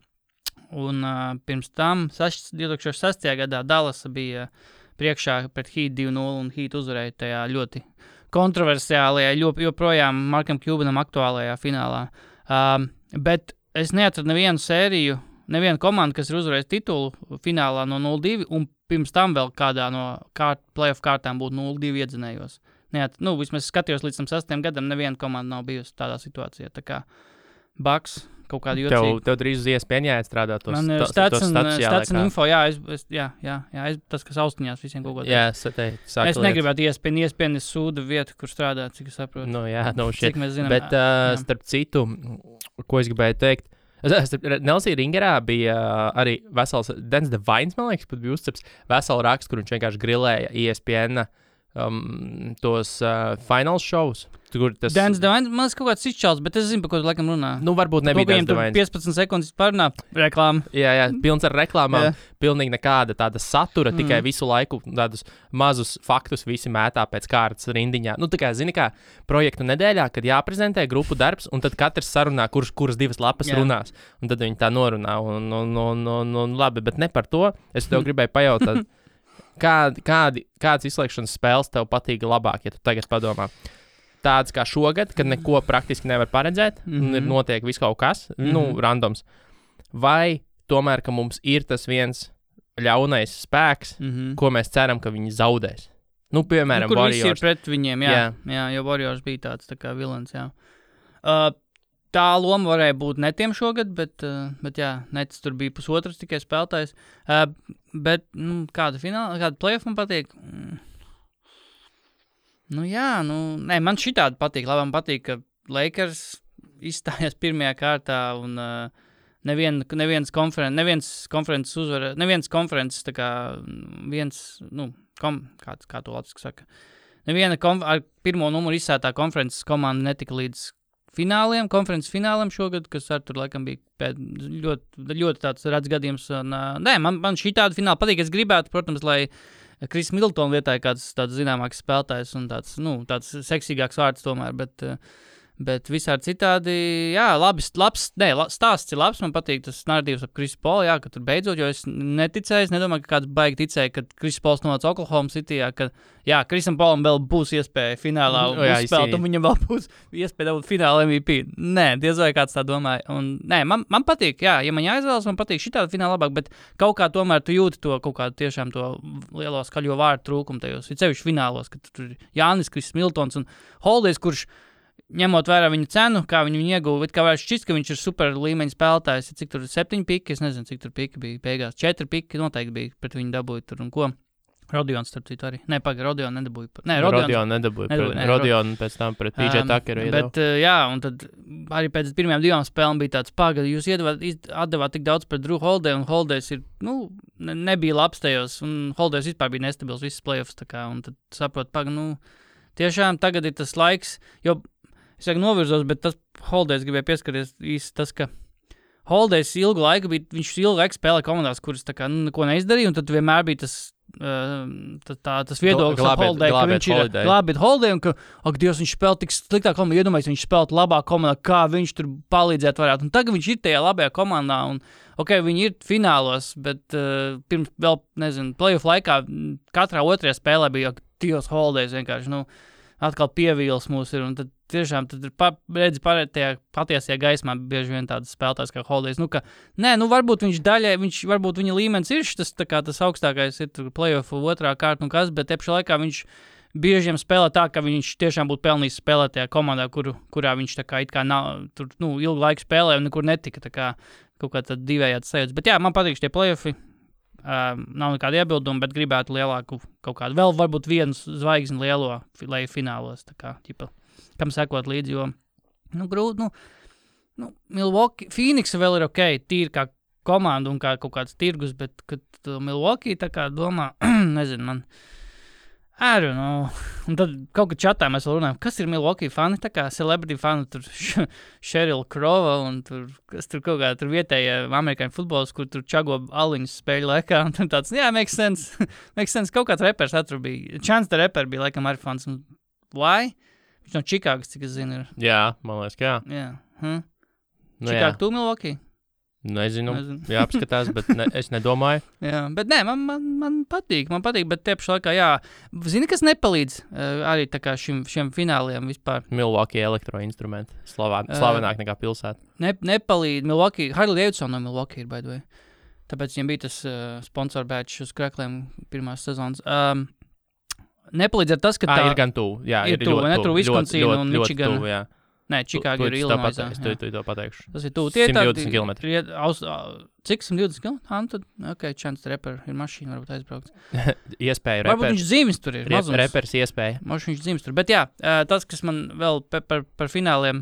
Un pirms tam 2006. gadā Dallas bija priekšā pret Heat 2-0 un Heat uzvarēja tajā ļoti kontroversiālajā, joprojām Markam Cubanam aktuālajā finālā. Bet es neatradu nevienu sēriju, nevienu komandu, kas ir uzvarējis titulu finālā no 0-2 un pirms tam vēl kādā no playoff kārtām būtu 0-2 iedzinējos. Vismaz skatījos līdz tam 6. gadam, neviena komanda nav bijusi tādā situācijā. Tā kā Bucks kaut kādu jocīgu. Tev drīz uz ESPN jāstrādā tos Man ir stats un info, tas, kas austiņās visiem kaut ko tādu. Jā, es negribētu ESPN sūdu vietu, kur strādāt, cik es saprotu. Cik mēs zinām. Bet starp citu, ko es gribēju teikt, Nelsija Ringerā bija arī vesels, Dens Devines, man liekas, pat bija uzceps veselu rakstu, kur viņš vienkārši grilēja ESPN tos finals shows. Dens Devines, man liekas, kaut kāds izčāls, bet es zinu, par ko tu laikam runā. Varbūt nebija Dens Devines. 15 sekundes pārnā reklāma. Jā, pilns ar reklāmām. Pilnīgi nekāda tāda satura, tikai visu laiku tādus mazus faktus visi mētā pēc kārtas rindiņā. Tā kā, zini kā, projektu nedēļā, kad jāprezentē grupu darbs, un tad katrs sarunā, kuras 2 lapas runās. Un tad viņi tā norunā. Un labi, bet ne par to. Es tev gribēju pajautāt, kādas izslēgšanas spēles tev patīk labāk, ja tu tagad padomā? Tāds kā šogad, kad neko praktiski nevar paredzēt, un ir notiek viss kaut kas, randoms. Vai tomēr, ka mums ir tas viens ļaunais spēks, ko mēs ceram, ka viņi zaudēs? Piemēram, kur Warriors. Kur visi ir pret viņiem, jā, jo Warriors bija tāds tā kā vilens, jā. Tā loma varēja būt netiem šogad, bet jā, Nets tur bija pusotrs tikai spēlētājs. Bet kāda playoff man patīk? Man šitādi patīk. Labi, man patīk, ka Lakers izstājās pirmajā kārtā un neviens konferences uzvara, neviens konferences tā kā kā to latviski saka. Neviena ar pirmo numuru izsētā konferences komanda netika līdz konferences fināliem šogad, kas ar tur laikam bija ļoti tāds redz gadījums. Man šitādi fināli patīk. Es gribētu, protams, lai Kris Middletona vietā ir kāds tāds zināmāks spēlētājs un tāds seksīgāks vārds tomēr, bet visādi citādi, jā, stāsts ir labs, man patīk tas narratīvs ap Krisu Polu, jā, ka tur beidzot, jo es neticēju, es nedomāju, ka kāds baigi ticēja, kad Krisu Pols nonāca Oklahoma Cityjā, ka, jā, Krisam Polam vēl būs iespēja finālā uzspēlēt, un viņam vēl būs iespēja dabūt fināla MVP. Nē, diez vai kāds tā domāja. Un, nē, man patīk, jā, ja man jāizvēlas, man patīk šitādi fināla labāk, bet kaut kā tomēr tu jūti to kaut kādu tiešām to lielo skaļo vārdu trūkumu tajos, ir sevišķi finālos, kad tur ir Jānis, Kris Middletons un Holidays, kurš ņemot vērā viņa cenu, kā viņu ieguva, kā varētu šķist, ka viņš ir super līmeņa spēlētājs, cik tur 7 piki, es nezinu, cik tur piki bija beigās, 4 piki noteikti bija pret viņu dabūja tur un ko. Rodions, starp citu, arī. Nē, Rodion nedabūja. Nē, Rodion nedabūja. Rodion pēc tam pret PJ Tuckeru iedeva. Bet, jā, un tad arī pēc pirmajām 2 spēlēm bija tāds jūs atdevāt tik daudz pret Drew Holiday, un Holidays ir, nebija labs tajos, un Holidays vispār bija nestabils visas playoffs, tā kā, un tad saprot, tiešām tagad ir tas laiks, jo es novirzos, bet tas Holidays gribēja pieskarties īsti tas, ka Holidays ilgu laiku bija, viņš ilgu laiku spēlēja komandās, kuras tā kā neko neizdarīja, un tad vienmēr bija tas viedoklis ap Holiday, ka viņš ir glābīt Holiday, un ka, Dievs, viņš spēlē tik sliktā komandā, iedomājies, viņš spēlē labā komandā, kā viņš tur palīdzēt varētu, un tagad viņš ir tajā labajā komandā, un, viņi ir finālos, bet pirms vēl, nezinu, playoff laikā katrā otrajā spēlē bija, Dievs, Holidays vienkārši, atkal pievīls mūs ir, un tad tiešām tad redzi patiesajā gaismā bieži vien tādas spēlētājs kā Holidays, varbūt varbūt viņa līmenis ir tas augstākais ir playoff otrā kārta un kas, bet tepšā laikā viņš bieži spēlē tā, ka viņš tiešām būtu pelnījis spēlēt tajā komandā, kurā viņš tā kā it kā nav, tur, ilgu laiku spēlē un nekur netika, tā kā kaut kā tad divējāds sajūtas. Bet jā, man patīk šie play-offi, nav nekāda iebilduma, bet gribētu lielāku kaut kādu, vēl varbūt vienu zvaigzni lielo, lai finālos, tā kā, ķipa, kam sekot līdzi, jo, grūti, Milwaukee, Phoenix vēl ir ok, tīri kā komanda un kā kaut kāds tirgus, bet, kad Milwaukee tā kā domā, nezinu, man, I don't know. Un tad kaut kā čatā mēs vēl runājam, kas ir Milwaukee fani, tā kā celebrity fani, tur Sheryl Crow un tur, kas tur kaut kā tur vietējie amerikāņu futbols, kur tur čago aliņus spēļu laikā, un tāds, jā, makes sense, kaut kāds repers atur bija, Chance the Rapper bija laikam arī fans, un why? Viņš no Čikāgas, cik es zinu, ir. Jā, man liekas, ka jā. Jā. Čikāga, tu Milwaukee? Nezinu. Jāapskatās, bet es nedomāju. Jā, bet nē, man patīk, bet tie pašā laikā, jā, zini, kas nepalīdz arī tā kā šiem fināliem vispār. Milwaukee elektroinstrumenti, slavenāk nekā pilsēta. Nepalīdz, Milwaukee, Harley Davidson no Milwaukee ir, by the way. Tāpēc viņiem bija tas sponsor badge uz krekliem pirmās sezonas. Nepalīdz ar tas, ka tā... ir gan tuvu, jā, ir tuvu, ne tur Wisconsin un Michigan. Tuvu, jā. Nē, Čikāga ir Illinoisā. Tu to pateikšu. Tas ir tuvu. 120 km. Cik 120 km? Tad, ok, Chance the Rapper ir mašīna, varbūt aizbraukt. Iespēja repers. Varbūt viņš dzīves tur ir. Repers iespēja. Možda viņš dzīves tur. Bet jā, tas, kas man vēl par fināliem,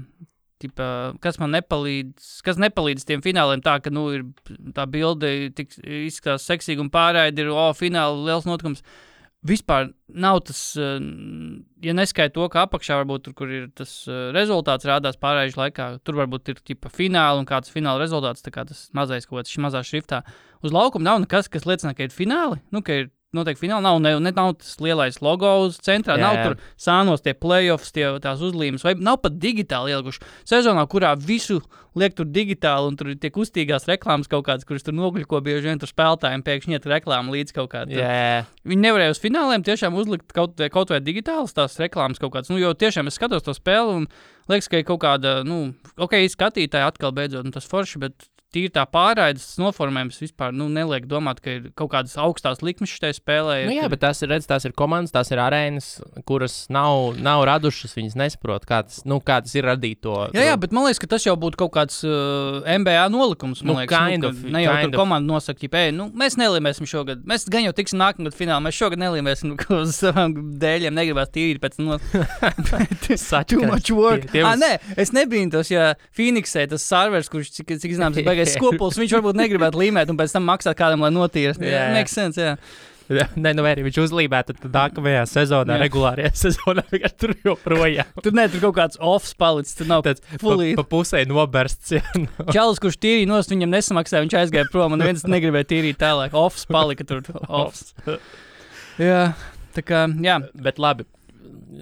tipa, kas man nepalīdz tiem fināliem tā, ka, ir tā bilde izskatās seksīgi un pārraidi ir, fināli liels notikums. Vispār nav tas, ja neskaita to, ka apakšā varbūt tur, kur ir tas rezultāts rādās pārējuši laikā, tur varbūt ir tipa fināli un kāds fināla rezultāts, tā kā tas mazais kaut kāds mazā šriftā. Uz laukuma nav nekas, kas liecina, ka ir fināli, ka ir noteikti fināli, nav tas lielais logo uz centrā, nav tur sānos tie playoffs, tās uzlīmes, vai nav pat digitāli ielguši. Sezonā, kurā visu liek tur digitāli un tur ir tie kustīgās reklāmas kaut kādas, kuras tur nogļuko bieži vien tur spēlētājiem pēkšņi iet reklāma līdz kaut kādā. Viņi nevarēja uz fināliem tiešām uzlikt kaut vai digitālas tās reklāmas kaut kādas, jo tiešām es skatos to spēli un liekas, ka ir kaut kāda, skatītāji atkal beidzot, tas forši, bet tīri tā pārraides noformējums vispār neliek domāt, ka ir kaut kādas augstās likmes šitai spēlē. Jā, bet tās ir komandas, tās ir arēnas, kuras nav radušas, viņas nesaprot, kā tas ir radīt to. Jā, bet man liekas, ka tas jau būtu kaut kāds NBA nolikums, man liekas. Ne jau tur komanda nosaka, mēs nelīmēsim šogad, mēs gan jau tiksim nākamgad finālā, mēs šogad nelīmēsim uz savām dēļiem, negribās tīri pēc too much work. Nē, es nebīntos, ja Phoenixē tas servers, kurš cik zināms, skopuls, viņš varbūt negribētu līmēt un pēc tam maksāt kādam, lai notīras. Makes sense, jā. Nē, arī viņš uzlīmētu, tad nākamajā sezonā, regulārajā sezonā, tur joprojām. Tur kaut kāds offs palicis, tur nav tāds fully. Pa pusē nobersts, jā. Čalis, kurš tīrīja nost, viņam nesamaksāja, viņš aizgāja prom, un viens negribēja tīrīt tālāk. Offs palika tur. Offs. Jā, tā kā, jā. Bet labi.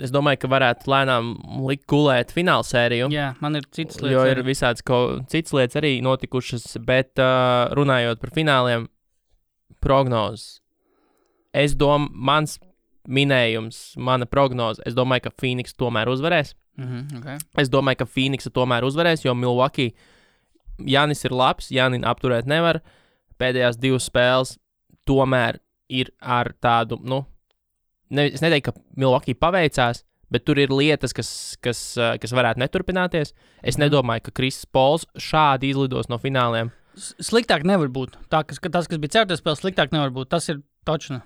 Es domāju, ka varētu lēnām likt gulēt fināla sēriju. Jā, man ir citas lietas. Jo ir visādas citas lietas arī notikušas, bet runājot par fināliem, prognozes. Mans minējums, mana prognoze, es domāju, ka Phoenix tomēr uzvarēs. Okay. Es domāju, ka Phoenix tomēr uzvarēs, jo Milwaukee, Jānis ir labs, Jāni apturēt nevar. Pēdējās 2 spēles tomēr ir ar tādu, es neteiktu, ka Milwaukee paveicās, bet tur ir lietas, kas varētu neturpināties. Es nedomāju, ka Kris Pols šādi izlidos no fināliem. Sliktāk nevar būt. Tas, kas bija cerētais spēles, sliktāk nevar būt. Tas ir točna.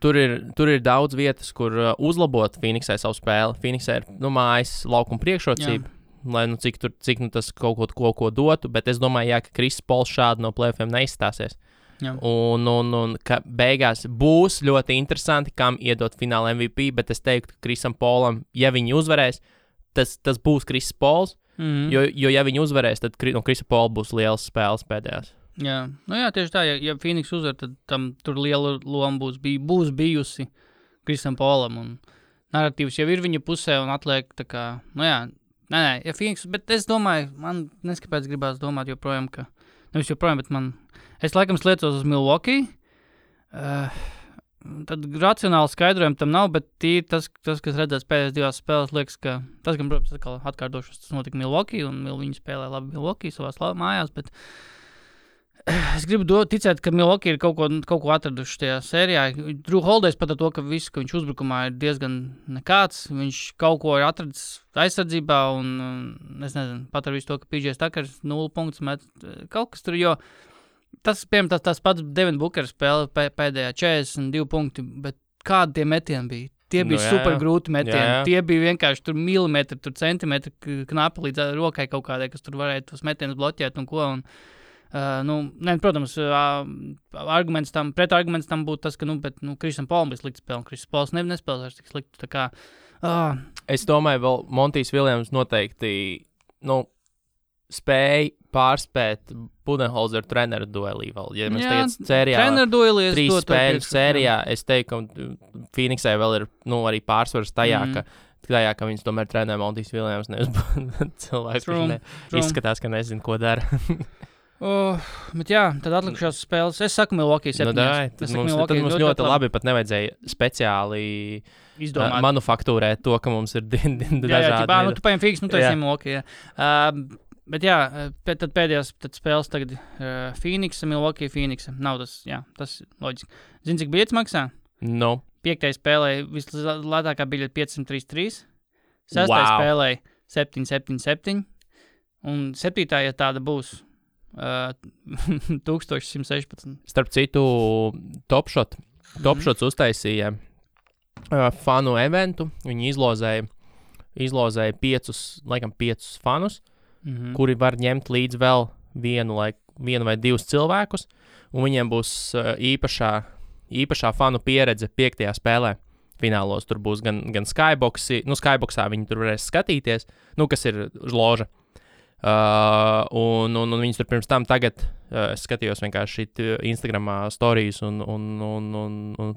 Tur ir daudz vietas, kur uzlabot Phoenixai savu spēli. Phoenixai ir mājas laukuma priekšrocība, lai cik tas kaut ko dotu, bet es domāju, ka Kris Pols šādi no playoffiem neizstāsies. Jā. Un ka beigās būs ļoti interesanti, kam iedot fināla MVP, bet es teiktu, ka Krisam Polam, ja viņi uzvarēs, tas būs Kris Pols, jo ja viņi uzvarēs, tad no Krisa Pola būs liels spēles pēdējās. Jā, tieši tā, ja Phoenix uzvar, tad tam tur liela loma būs bijusi Krisam Polam, un narratīvs jau ir viņa pusē, un atliek tā kā, ja Phoenix, bet es domāju, man neskapēc gribās domāt joprojām, ka, nevis joprojām, bet es laikam sliecos uz Milwaukee, tad racionāli skaidrojumu tam nav, bet tīri tas, kas redzēts pēdējās 2 spēles, liekas, ka tas, gan, protams, atkārtošos, tas notika Milwaukee, un viņi spēlē labi Milwaukee savās mājās, bet Es gribu ticēt, ka Milwaukee ir kaut ko atraduši tajā sērijā. Drew Holidays pat ar to, ka viss, ka viņš uzbrukumā ir diezgan nekāds. Viņš kaut ko ir atradis aizsardzībā un es nezinu, pat ar visu to, ka PJ Tuckers 0 punktus met kaut kas tur, jo tas, piemēram, tas pats Devin Booker spēle pēdējā 42 punkti, bet kādi tie metieni bija? Tie bija super grūti metieni. Jā. Tie bija vienkārši tur milimetri, tur centimetri knapi līdz rokai kaut kādai, kas tur varēja tos metienus bloķēt un ko. Protams, pretarguments tam būtu tas, ka, Krisam Paulam bija slikti spēle. Krisam Pauls nespēlēs tik slikti. Tā kā, Es domāju, vēl Montijs Viljams noteikti, spēja pārspēt Budenholzer treneru duelī vēl. Ja mēs tagad sērijā, 3 spēļu sērijā, es teiktu, ka Phoenixai vēl ir, arī pārsvars tajā, ka viņas tomēr trenē Montijs Viljams, nevis cilvēks, kurš izskatās, ka nezinu, ko dara. Bet jā, tad atlikušās spēles. Es saku Milwaukee 7. Tad mums ļoti labi pat nevajadzēja speciāli izdomāt. Manufaktūrēt to, ka mums ir dažādi. Tu paņem Phoenix, tu esi Milwaukee. Bet jā, tad pēdējās spēles tagad Phoenix, Milwaukee, Phoenix. Nav tas loģiski. Zini, cik biļetes maksā? No. 5. spēlē vislētākā biļete 533. 6. spēlē 777. Un 7. ja tāda būs 1116. Starp citu, Topshots uztaisīja fanu eventu. Viņi izlozēja 5 fanus, kuri var ņemt līdz vēl vienu vai 2 cilvēkus, un viņiem būs īpašā fanu pieredze 5. spēlē. Finālos tur būs gan Skyboxi, Skyboxā viņi tur varēs skatīties, kas ir loža. Un viņas tur pirms tam tagad, es skatījos vienkārši Instagramā storijas un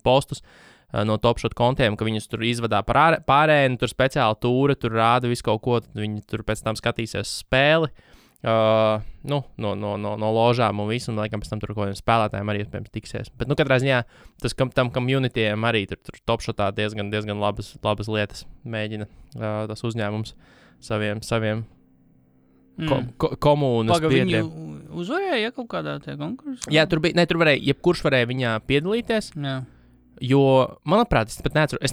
postus no Topshot kontiem, ka viņas tur izvadā pārēni, tur speciāli tūra, tur rāda visu kaut ko, tad viņi tur pēc tam skatīsies spēli, no ložām un visu, un laikam pēc tam tur kaut kādiem spēlētājiem arī iespējams tiksies. Bet, katrā ziņā, tam communityiem arī tur Topshotā diezgan labas lietas mēģina tas uzņēmums saviem komunas biedriem. Viņu uzvarēja kaut kādā tajā konkursā? Jā, tur varēja, jebkurš varēja viņā piedalīties. Jā. Jo, manuprāt, es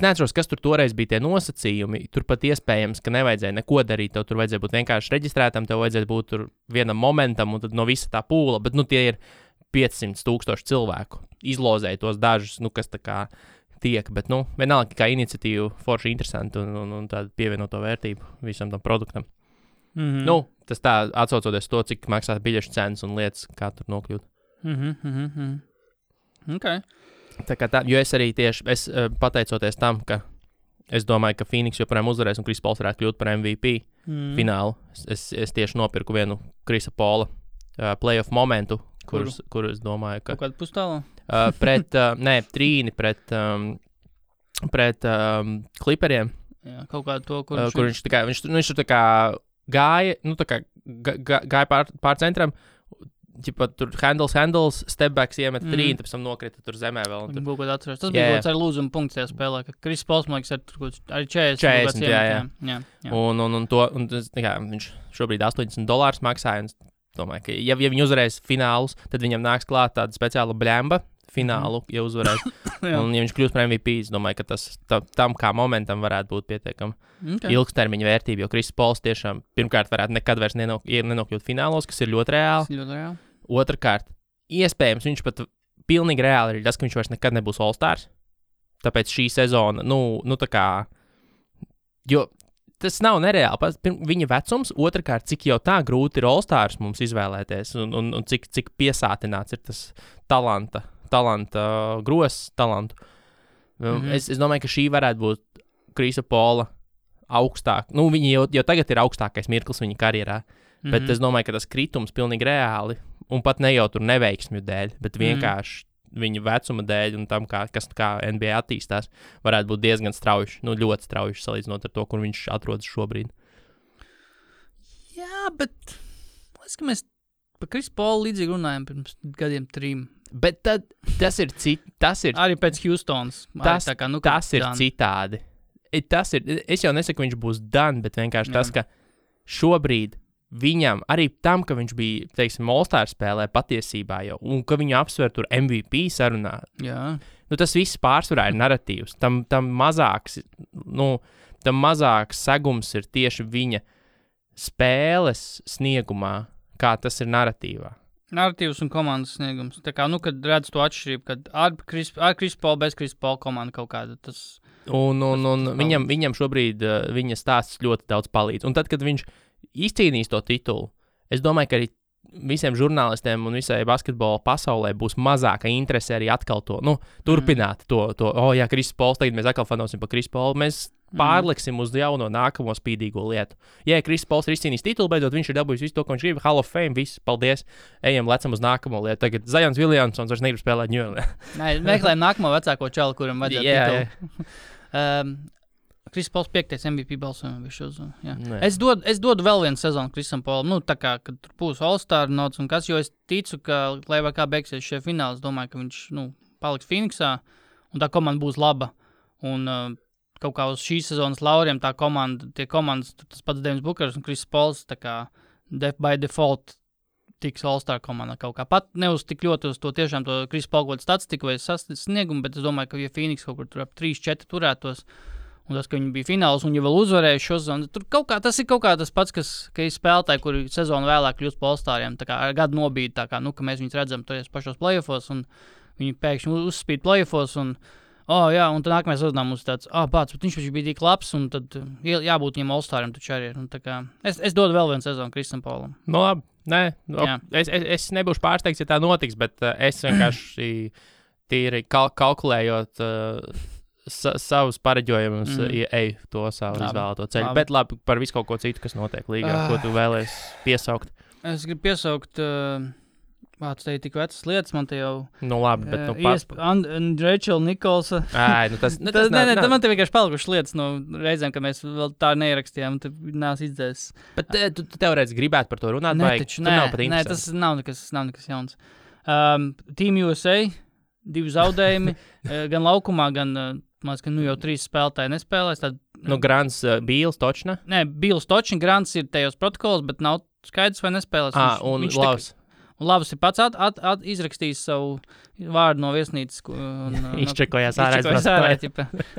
neatceros, kas tur toreiz bija tie nosacījumi. Tur pat iespējams, ka nevajadzēja neko darīt. Tev tur vajadzēja būt vienkārši reģistrētam, tev vajadzēja būt tur vienam momentam, un tad no visa tā pūla. Bet, tie ir 500,000 cilvēku. Izlozēja tos dažus, kas tā kā tiek. Bet, vienalga, kā iniciatīva forši interesanti un tāda pievienoto vērtību visam tam produktam. Tas tā atsaucoties to, cik maksā biļešu cenas un lietas, kā tur nokļūt. Okay. Tā kā jo es arī tieši pateicoties tam, ka es domāju, ka Phoenix joprojām uzvarēs un Chris Pauls varētu kļūt par MVP finālu. Es tieši nopirku vienu Chrisa Paula playoff momentu, kur es domāju, ka... Kaut kādu pustālu? Trīni pret Clipperiem. Jā, kaut kādu to, kur viņš tā kā gāja, gāja pār centram, tur handles, stepbacks iemet trīni, tad pēc tam nokrita tur zemē vēl. Tas bija kaut kāds ar lūzumu punkts tajā spēlē, ka Chris Pauls, man liekas, arī 40. Jā. Un viņš šobrīd $80 maksāja, un domāju, ka ja viņi uzvarēs finālus, tad viņam nāks klāt tāda speciāla blemba finālu, ja uzvarēs. Un ja viņš kļūs par MVP, es domāju, ka tas tam kā momentam varētu būt pietiekami ilgstermiņa vērtība, jo Chris Pauls tiešām pirmkārt varētu nekad vairs nenokļūt finālos, kas ir ļoti reāli. Otrakārt, iespējams, viņš pat pilnīgi reāli ir tas, ka viņš vairs nekad nebūs All-Stars. Tāpēc šī sezona, tā kā, jo tas nav nereāli. Viņa vecums, otrkārt, cik jau tā grūti ir All-Stars mums izvēlēties un cik piesātināts ir tas talanta talantu. Es domāju, ka šī varētu būt Chrisa Paula augstāk. Viņi jau tagad ir augstākais mirklis viņa karjerā, bet es domāju, ka tas kritums pilnīgi reāli, un pat ne jau tur neveiksmju dēļ, bet vienkārši viņa vecuma dēļ un tam, kā NBA attīstās, varētu būt diezgan strauji, ļoti strauji salīdzinot ar to, kur viņš atrodas šobrīd. Jā, bet liekas, ka mēs par Chrisu Paulu līdzīgi runājam pirms gadiem 3. Bet tad tas ir arī pēc Houstons. Tas ir citādi. Es jau nesaku, ka viņš būs done, bet vienkārši tas, ka šobrīd viņam, arī tam, ka viņš bija, teiksim, All-Star spēlē patiesībā jau, un ka viņu apsver tur MVP sarunā. Jā. Nu, tas viss pārsvarā ir narratīvs. Tam mazāks segums ir tieši viņa spēles sniegumā, kā tas ir narratīvā. Narratīvs un komandas sniegums. Tā kā, kad redz to atšķirību, kad ar Chris Paul, bez Chris Paul komanda kaut kāda, tas... Un viņam šobrīd viņa stāsts ļoti daudz palīdz. Un tad, kad viņš izcīnīs to titulu, es domāju, ka arī visiem žurnālistiem un visai basketbola pasaulē būs mazāka interese arī atkal to, turpināt to, jā, Chris Pauls, tagad mēs atkal fanosim par Chris Paulu, mēs pārliksim uz jauno nākamo spīdīgo lietu. Ja Chris Pauls ir izcīnījis titulu, beidzot viņš ir dabūjis visu to, ko viņš grib, Hall of Fame, viss, paldies, lecam uz nākamo lietu. Tagad Zions Williamsons vairs negrib spēlēt New York. Nē, meklējam nākamo vecāko čalu, kuram vajadzētu titulu. Chris Pauls 5. MVP balsojumu. Es dodu vēl vienu sezonu Chrisam Paulam. Tā kā, kad tur būs All-Star nots un kas, jo es ticu, ka, lai vai kā beigsies šie fināli, es domāju, ka viņš, paliks Phoenixā un tā komanda būs laba. Un kaut kā uz šīs sezonas lauriem tie komandas, tas pats Devins Bookers un Chris Pauls, tā kā by default tiks All-Star komandā kaut kā. Pat ne uz tik ļoti uz to tiešām to Chris Paul kaut statistiku vai sasniegumu, bet es domāju, ka ja Phoenix kaut kur tur ap 3-4 turētos, un tas, ka viņi bija fināls un jau vēl uzvarēja šo sezonu, tur tas ir kaut kā tas pats, ka ir spēlētāji, kuri sezonu vēlāk kļūst par All-Stariem, tā kā ar gadu nobīdi, tā kā, ka mēs viņus redzam toties pašos playoffos, un viņi pēkšņi uzspīd playoffos, un un tad nākamajā sezonā mums tāds, bet viņš bija tik labs, un tad jābūt viņam All-Stariem taču arī ir. Tā kā, es dodu vēl vienu sezonu Chrisam Paulam. No labi, nē, es nebūšu pārsteigts, ja tā notiks, bet es vienkārši tīri kalkulējot savus pareģojumus, eju to savu izvēlēto ceļu. Bet labi, par visu kaut ko citu, kas notiek līgā, ko tu vēlies piesaukt. Es gribu piesaukt, tu te ir tik vecas lietas, man te jau... labi, bet Rachel Nicholsa. Tas man te vienkārši palikušas lietas no reizēm, ka mēs vēl tā neierakstījām, un te nās izdzēs. Bet tu teorētiski gribētu par to runāt, vai tu nav pat interesanti? Nē, tas nav nekas jauns. Team USA, 2 zaudējumi, gan laukumā, gan... Man liekas, ka jau 3 spēlētāji nespēlēs. Grants, Bīls, Točna? Nē, Bīls, Točna, Grants ir tajos protokolos, bet nav skaidrs, vai nespēlēs. Un Lavs. Lavs ir pats izrakstījis savu vārdu no viesnīcas. Izčekojās ārā.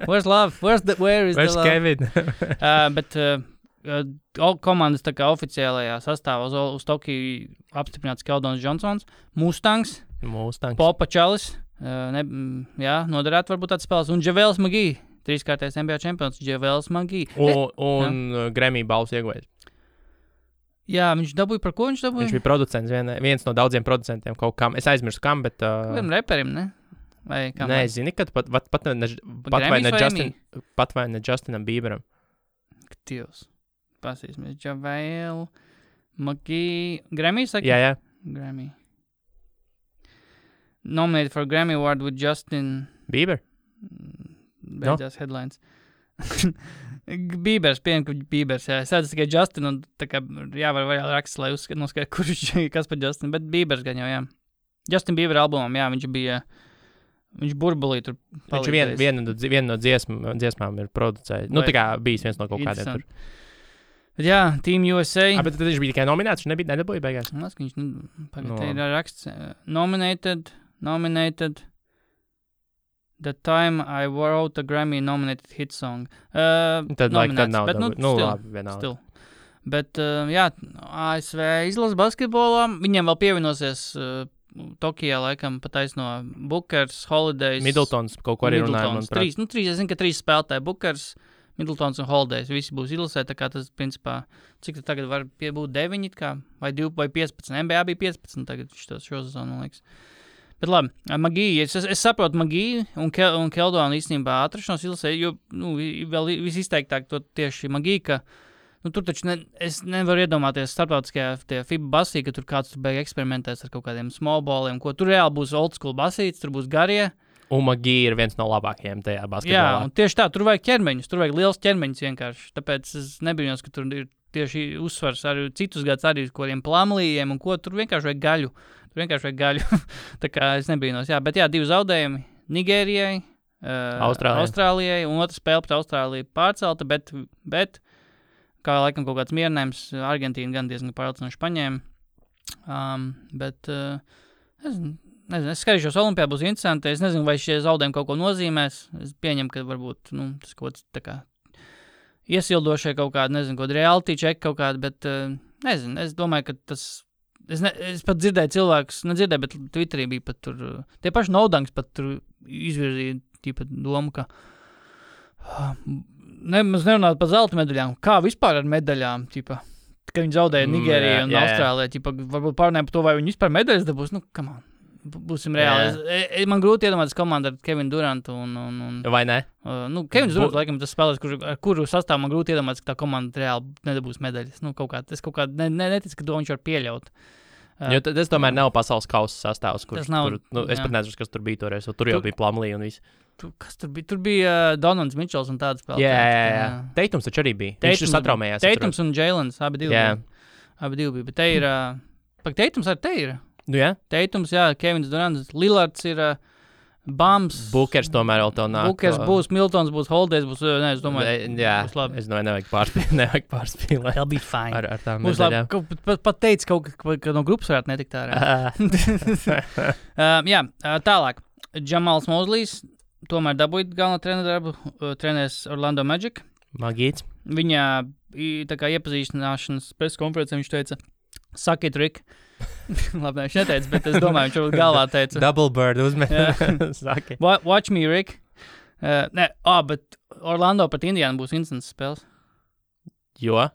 Where's Love? Where is the Love? Kevin? Bet komandas tā kā oficiālajā sastāvā uz Tokiju apstiprināts Keldons Johnsons, Mustangs. Popa Čalis. Noderētu varbūt tāds spēles. Un Javels Magī, 3-kārtais NBA čempions, Javels Magī. Un Grammy balvas ieguvējs. Jā, viņš dabūja, par ko viņš dabūja? Viņš bija producents, viens no daudziem producentiem kaut kam. Es aizmirsu kam, bet... Vienam reperim, ne? Vai kam? Nē, zini, ka pat vai ne Justinam Bieberam. Dievs. Pasīsimies. Javel Magī. Grammy, saka? Jā. Grammy. Nominated for Grammy Award with Justin Bieber. Beidzās headlines. Biebers, pieņem, ka Biebers, jā. Es redzu tikai Justin, un tā kā jāvar raksts, lai noskaidro, kurš kas par Justin, bet Biebers gan jau, jā. Justin Bieber albumam, jā, viņš burbulī tur palīdzējis. Viņš viena no dziesmām ir producējis. Tā kā bijis viens no kaut kādiem tur. Bet jā, Team USA. Bet tad viņš bija tikai nominēts, viņš nedabūja beigās. Tas, ka viņš te ir raksts. Nominated. The time I wrote a Grammy nominated hit song. Tad nav bet, labi, vienalga. Still. Bet, jā, ASV izlasa basketbolā. Viņiem vēl pievienosies Tokijā, laikam, pataisno Bookers, Holidays. Middletons kaut ko arī runāja, manuprāt. Es zinu, ka 3 spēlētāji Bookers, Middletons un Holidays. Visi būs izlasē, tā kā tas, principā, cik tad tagad var būt 9, kā, vai 2, vai 15. NBA bija 15 tagad šo sezonu, man liekas. Bet labi, Magī, es saprotu Magī un Keldonu īstenībā atrašanos izlasē, jo, vēl visizteiktāk to tieši Magī, ka, tur taču es nevaru iedomāties starptautiskajā FIBA basī, ka tur kāds tur beig eksperimentēs ar kaut kādiem small balliem, ko tur reāli būs old school basīts, tur būs garie. Un Magī ir viens no labākajiem tajā basketbolā. Jā, un tieši tā, tur vajag ķermeņus, tur vajag liels ķermeņus vienkārši, tāpēc es nebrīnos, ka tur ir tieši uzsvars arī citus gadus arī kaut kādiem plamlījiem un ko, tur vienkārši vajag gaļu. Tā kā es nebrīnos, jā, bet jā, 2 zaudējumi Nigērijai, Austrālijai, un otra spēle pret Austrāliju pārcelta, bet kā laikam kaut kāds mierinājums. Argentīna gan diezgan pārliecinoši paņēma. Bet es skatīšos Olimpijā, būs interesanti. Es nezinu, vai šie zaudējumi kaut ko nozīmēs. Es pieņemu, ka varbūt tas kaut kāds tā kā iesildošie kaut kādi, nezinu, kaut kādi reality check kaut kādi, bet nezinu, es domāju, ka tas, es pat dzirdēju cilvēkus, nedzirdēju, bet Twitterī bija pat tur, tie paši Naudanks pat tur izvirzīja tīpat domu, ka mēs nerunājam par zelta medaļām, kā vispār ar medaļām, tīpa, ka viņi zaudēja Nigēriju un Austrālijā, tīpa, varbūt pārnēm par to, vai viņi vispār medaļas dabūs, come on. Būsim reāli. Man grūti iedomāties komandu ar Kevinu Durantu un vai ne? Kevins Durants, laikam, tas spēlēs, kuru sastāv man grūti iedomāties, ka tā komanda reāli nedabūs medaļas. Es kaut kā neticu, ka to viņš var pieļaut. Jo tas tomēr nav pasaules kausa sastāvs, kurš tur, es pat nezinu, kas tur bija toreiz, tur jau bija Plumlee un viss. Kas tur bija? Tur bija Donalds Mitchells un tāds spēlētājs. Jā. Teitums taču arī bija. Viņš satraumējās. Teitums un Jailens, abi divi bija. Bet te ir, Teitums arī te ir. Teitums, Kevins Durants, Lillards ir Bams. Bukers tomēr vēl tev nāk. Bukers būs, Miltons būs, Holidays būs, es domāju, būs labi. Es domāju, nevajag pārspīlēt. That'll be fine. Ar tām būs medaļām. Labi, pat teica kaut ka no grupas varētu netikt ārā. Tālāk. Jamals Mozlijs tomēr dabūja galveno treneru darbu, trenēs Orlando Magic. Magīts. Viņa tā kā iepazīstināšanas preskonferencē viņš teica, suck it, Rick. Labi, viņš neteica, bet es domāju, viņš varbūt galvā teica. Double bird uzmet. Watch me, Rick. Bet Orlando pret Indiānu būs instants spēles. Jo?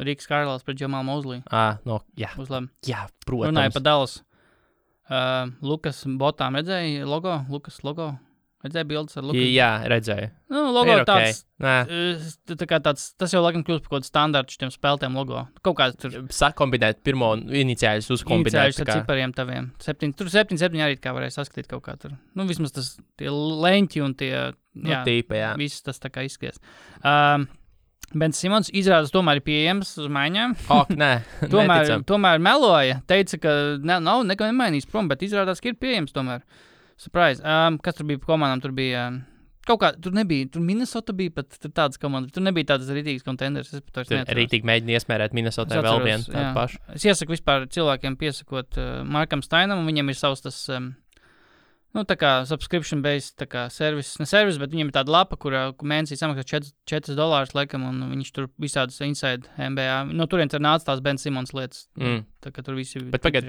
Riks Karls pret Jamal Mosley. Jā. Būs labi. Jā, protams. Runāja par Dallas. Lukas botām redzēja logo? Lukas logo? Redzēja bildes ar Lukas? Jā, redzēju. Logo ir tāds, okay. Tas jau laikam kļūst par kaut kādu standartu šitiem spēlētiem logo. Kaut kāds tur. Sakombinēt pirmo iniciāļus uzkombinēt. Iniciāļus ar cipariem taviem. 7 arī kā varēja saskatīt kaut kā tur. Vismaz tas tie leņķi un tie, viss tas tā kā izskaties. Bens Simons izrādās tomēr ir pieejams uz maiņām. Nē, tomēr meloja. Teica, ka nav neko nemainījis prom, bet izrādās, ka ir pieejams tomēr. Surprise. Kas tur bija komandām? Tur bija kaut kā, tur nebija, tur Minnesota bija pat tādas komandas, tur nebija tādas rītīgas contenders. Tur rītīgi mēģina iesmērēt Minnesota vēl vienu tādu pašu. Es iesaku vispār cilvēkiem piesakot Markam Steinam, un viņam ir savs tas, tā kā subscription-based, tā kā service, bet viņam ir tāda lapa, kur mēnesī samaksā $4, laikam, un viņš tur visādas inside NBA. No turien tur nāca tās Ben Simons lietas. Tā kā tur visi bet pagad,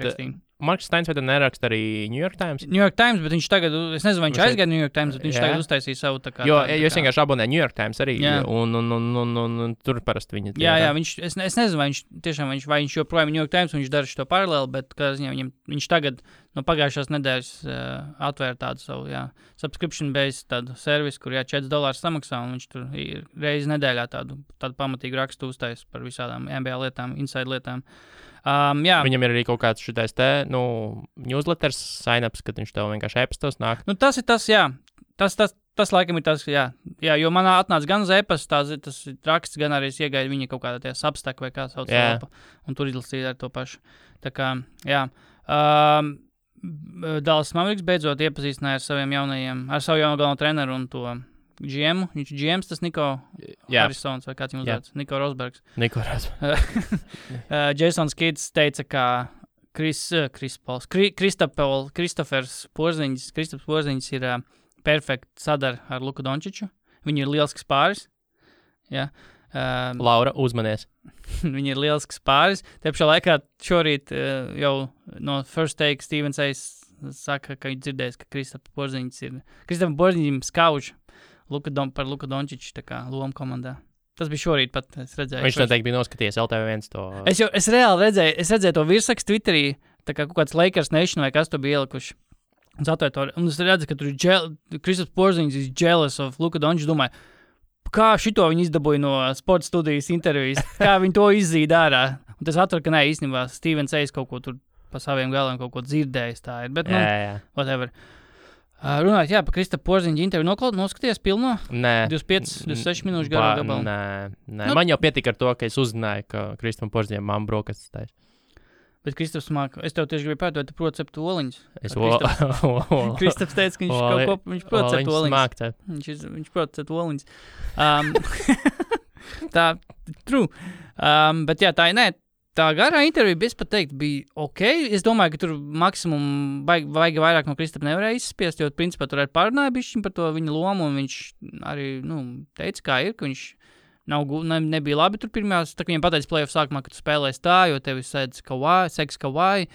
Marks Steins vai tad neraksta arī New York Times? New York Times, bet viņš tagad, es nezinu, vai viņš aizgāja New York Times, bet viņš tagad uztaisīja savu tā kā. Jo es vienkārši abonēju New York Times arī, un tur parasti viņi. Jā, es nezinu, vai viņš joprojām New York Times, un viņš dara šo paralēli, bet kā ziņā viņš tagad no pagājušās nedēļas atvēra tādu savu, subscription-based tādu servisu, kur $4 samaksā, un viņš tur reizi nedēļā tādu pamatīgu rakstu uztais par visādām NBA lietām, inside lietām. Viņam ir arī kaut kāds šitais newsletters sign-ups, kad viņš tev vienkārši e-pastos nāk. Tas ir tas, jā. Tas laikam ir tas, jā. Jā, jo manā atnāca gan uz e-pasta, tas raksts, gan arī es iegaidu viņa kaut kādā tie Substack vai kā sauc lapa, un tur izlasīja ar to pašu. Tā kā, jā. Dallas Mavericks beidzot iepazīstināja ar savu jauno galveno treneru un to GM, viņš GMs, tas Niko Harrisons vai kāds viņu uzvārds, Niko Rosbergs. Jasons Kids teica, ka Kristofers Porziņš ir perfekti sadara ar Luku Dončiču. Viņi ir lielisks pāris. Laura, uzmanies. Viņi ir lielisks pāris. Te pašā laikā šorīt jau no First Take Stevens Ace saka, ka viņš dzirdējis, ka Kristofers Porziņš skauž par Luku Dončiču tā kā lomu komandā. Tas bija šorīt pat, es redzēju. Viņš noteikti bija noskatījies LTV1 to. Es reāli redzēju to virsrakstu Twitterī, tā kā kaut kāds Lakers Nation vai kas to bija ielikuši. Un es redzu, ka tur ir Kristofers Porziņš is jealous of Luku Dončiču. Domāju, kā šito viņi izdabūja no sporta studijas intervijas, kā viņi to izzīda ārā. Un tas atver, ka īstenībā Stevens Ace kaut ko tur pa saviem galiem kaut ko dzirdējis tā ir. Bet, whatever. Runājot, par Kristofera Porziņa interviju noskaties pilno? Nē. 26 minūšu garu gabalu? Nē. Man jau pietika ar to, ka es uzzināju, ka Kristoferam Porziņam mamma brokastis taisa. Bet Kristofers māca, es tev tieši gribēju pētot, tu proti cept oliņus. Kristofers teica, ka viņš proti cept oliņus. Viņš proti cept oliņus. Tā, true. Bet jā, tā garā intervija, es pat teiktu, bija ok. Es domāju, ka tur maksimum vajag vairāk no Kristapa nevarēja izspiest, jo principā tur arī pārunāja bišķiņ par to viņa lomu, un viņš arī, teica, kā ir, ka viņš nebija labi tur pirmās, tā kā viņam pateica play-off sākumā, ka tu spēlēsi tā, jo tevi seks Kawhi,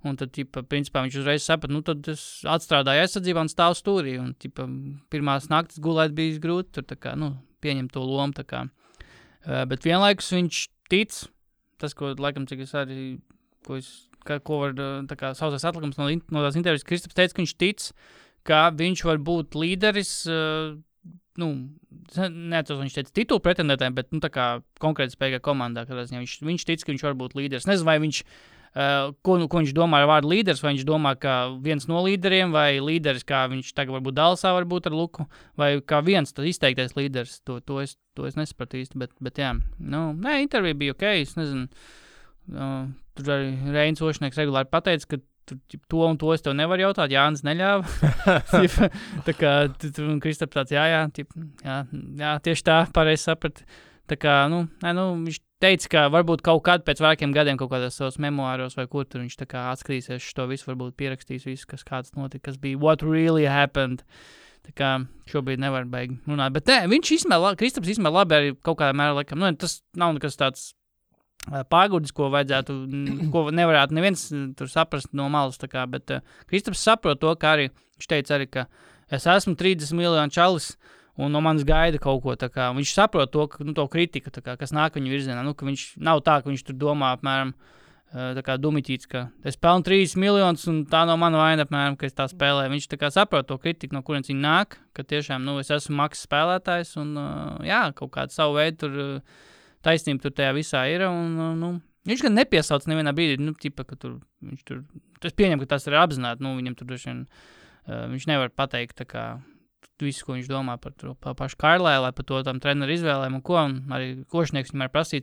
un tad, principā, viņš uzreiz saprata, tad es atstrādāju aizsardzībā un stāvu stūrī, un, pirmās naktas gulēt bija grūti, tur, tā kā, pieņemt to lomu, tā kā. Bet vienlaikus viņš tic, tas, ko, laikam, cik es arī, ko var, tā kā, sausais atlikums no tās intervijas, Kristaps teica, ka viņš tic, ka viņš var būt līderis, neatceros, viņš teica titulu pretendētājiem, bet, tā kā konkrēti spēkā komandā, kad viņš tic, ka viņš var būt līderis. Nezinu, vai viņš, ko viņš domā ar vārdu līderis, vai viņš domā, ka viens no līderiem, vai līderis, kā viņš tagad varbūt Dallasā varbūt ar Luku, vai kā viens tas izteiktais līderis, to es nesapratu īsti, bet jā, intervija bija ok, es nezinu, tur arī Reinis Ošnieks regulāri pateica, ka to un to es tev nevaru jautāt, Jānis neļāva. Tā kā Kristaps tāds, jā, tieši tā, pareizi saprat. Tā kā, viņš teica, ka varbūt kaut kad pēc vairākiem gadiem kaut kādos savos memoāros vai kur tur viņš tā kā atskatīsies šo visu, varbūt pierakstīs visu, kas kāds notika, kas bija what really happened. Tā kā šobrīd nevar beigt runāt. Bet Kristaps izmēr labi arī kaut kādā mērā, laikam, tas nav nekas tāds pāgudis, ko nevarētu neviens tur saprast no malas, tā kā, bet Kristaps saprot to, ka arī, viņš teica arī, ka es esmu 30 miljonu čalis, un no manis gaida kaut ko, tā kā, viņš saprot to, ka, to kritiku, tā kā, kas nāk viņa virzienā, ka viņš nav tā, ka viņš tur domā, apmēram, tā kā dumiķīts, ka es pelnu 30 miljonus, un tā nav mana vaina, apmēram, ka es tā spēlēju. Viņš tā kā saprot to kritiku, no kurienes viņa nāk, ka tiešām, es esmu maksas spēlētājs, un, kaut kādu savu veidu tur taisnība tur tajā visā ir, un viņš gan nepiesauc nevienā brīdī, ka tur, viņš tur, es pieņemu, ka tas ir apzināti, viņam tur droši vien, viņš nevar pateikt, tā kā, visu, ko viņš domā par pašu Karlēlu, par to tam treneru izvēlēm un ko, un arī Košnieks viņam prasīja,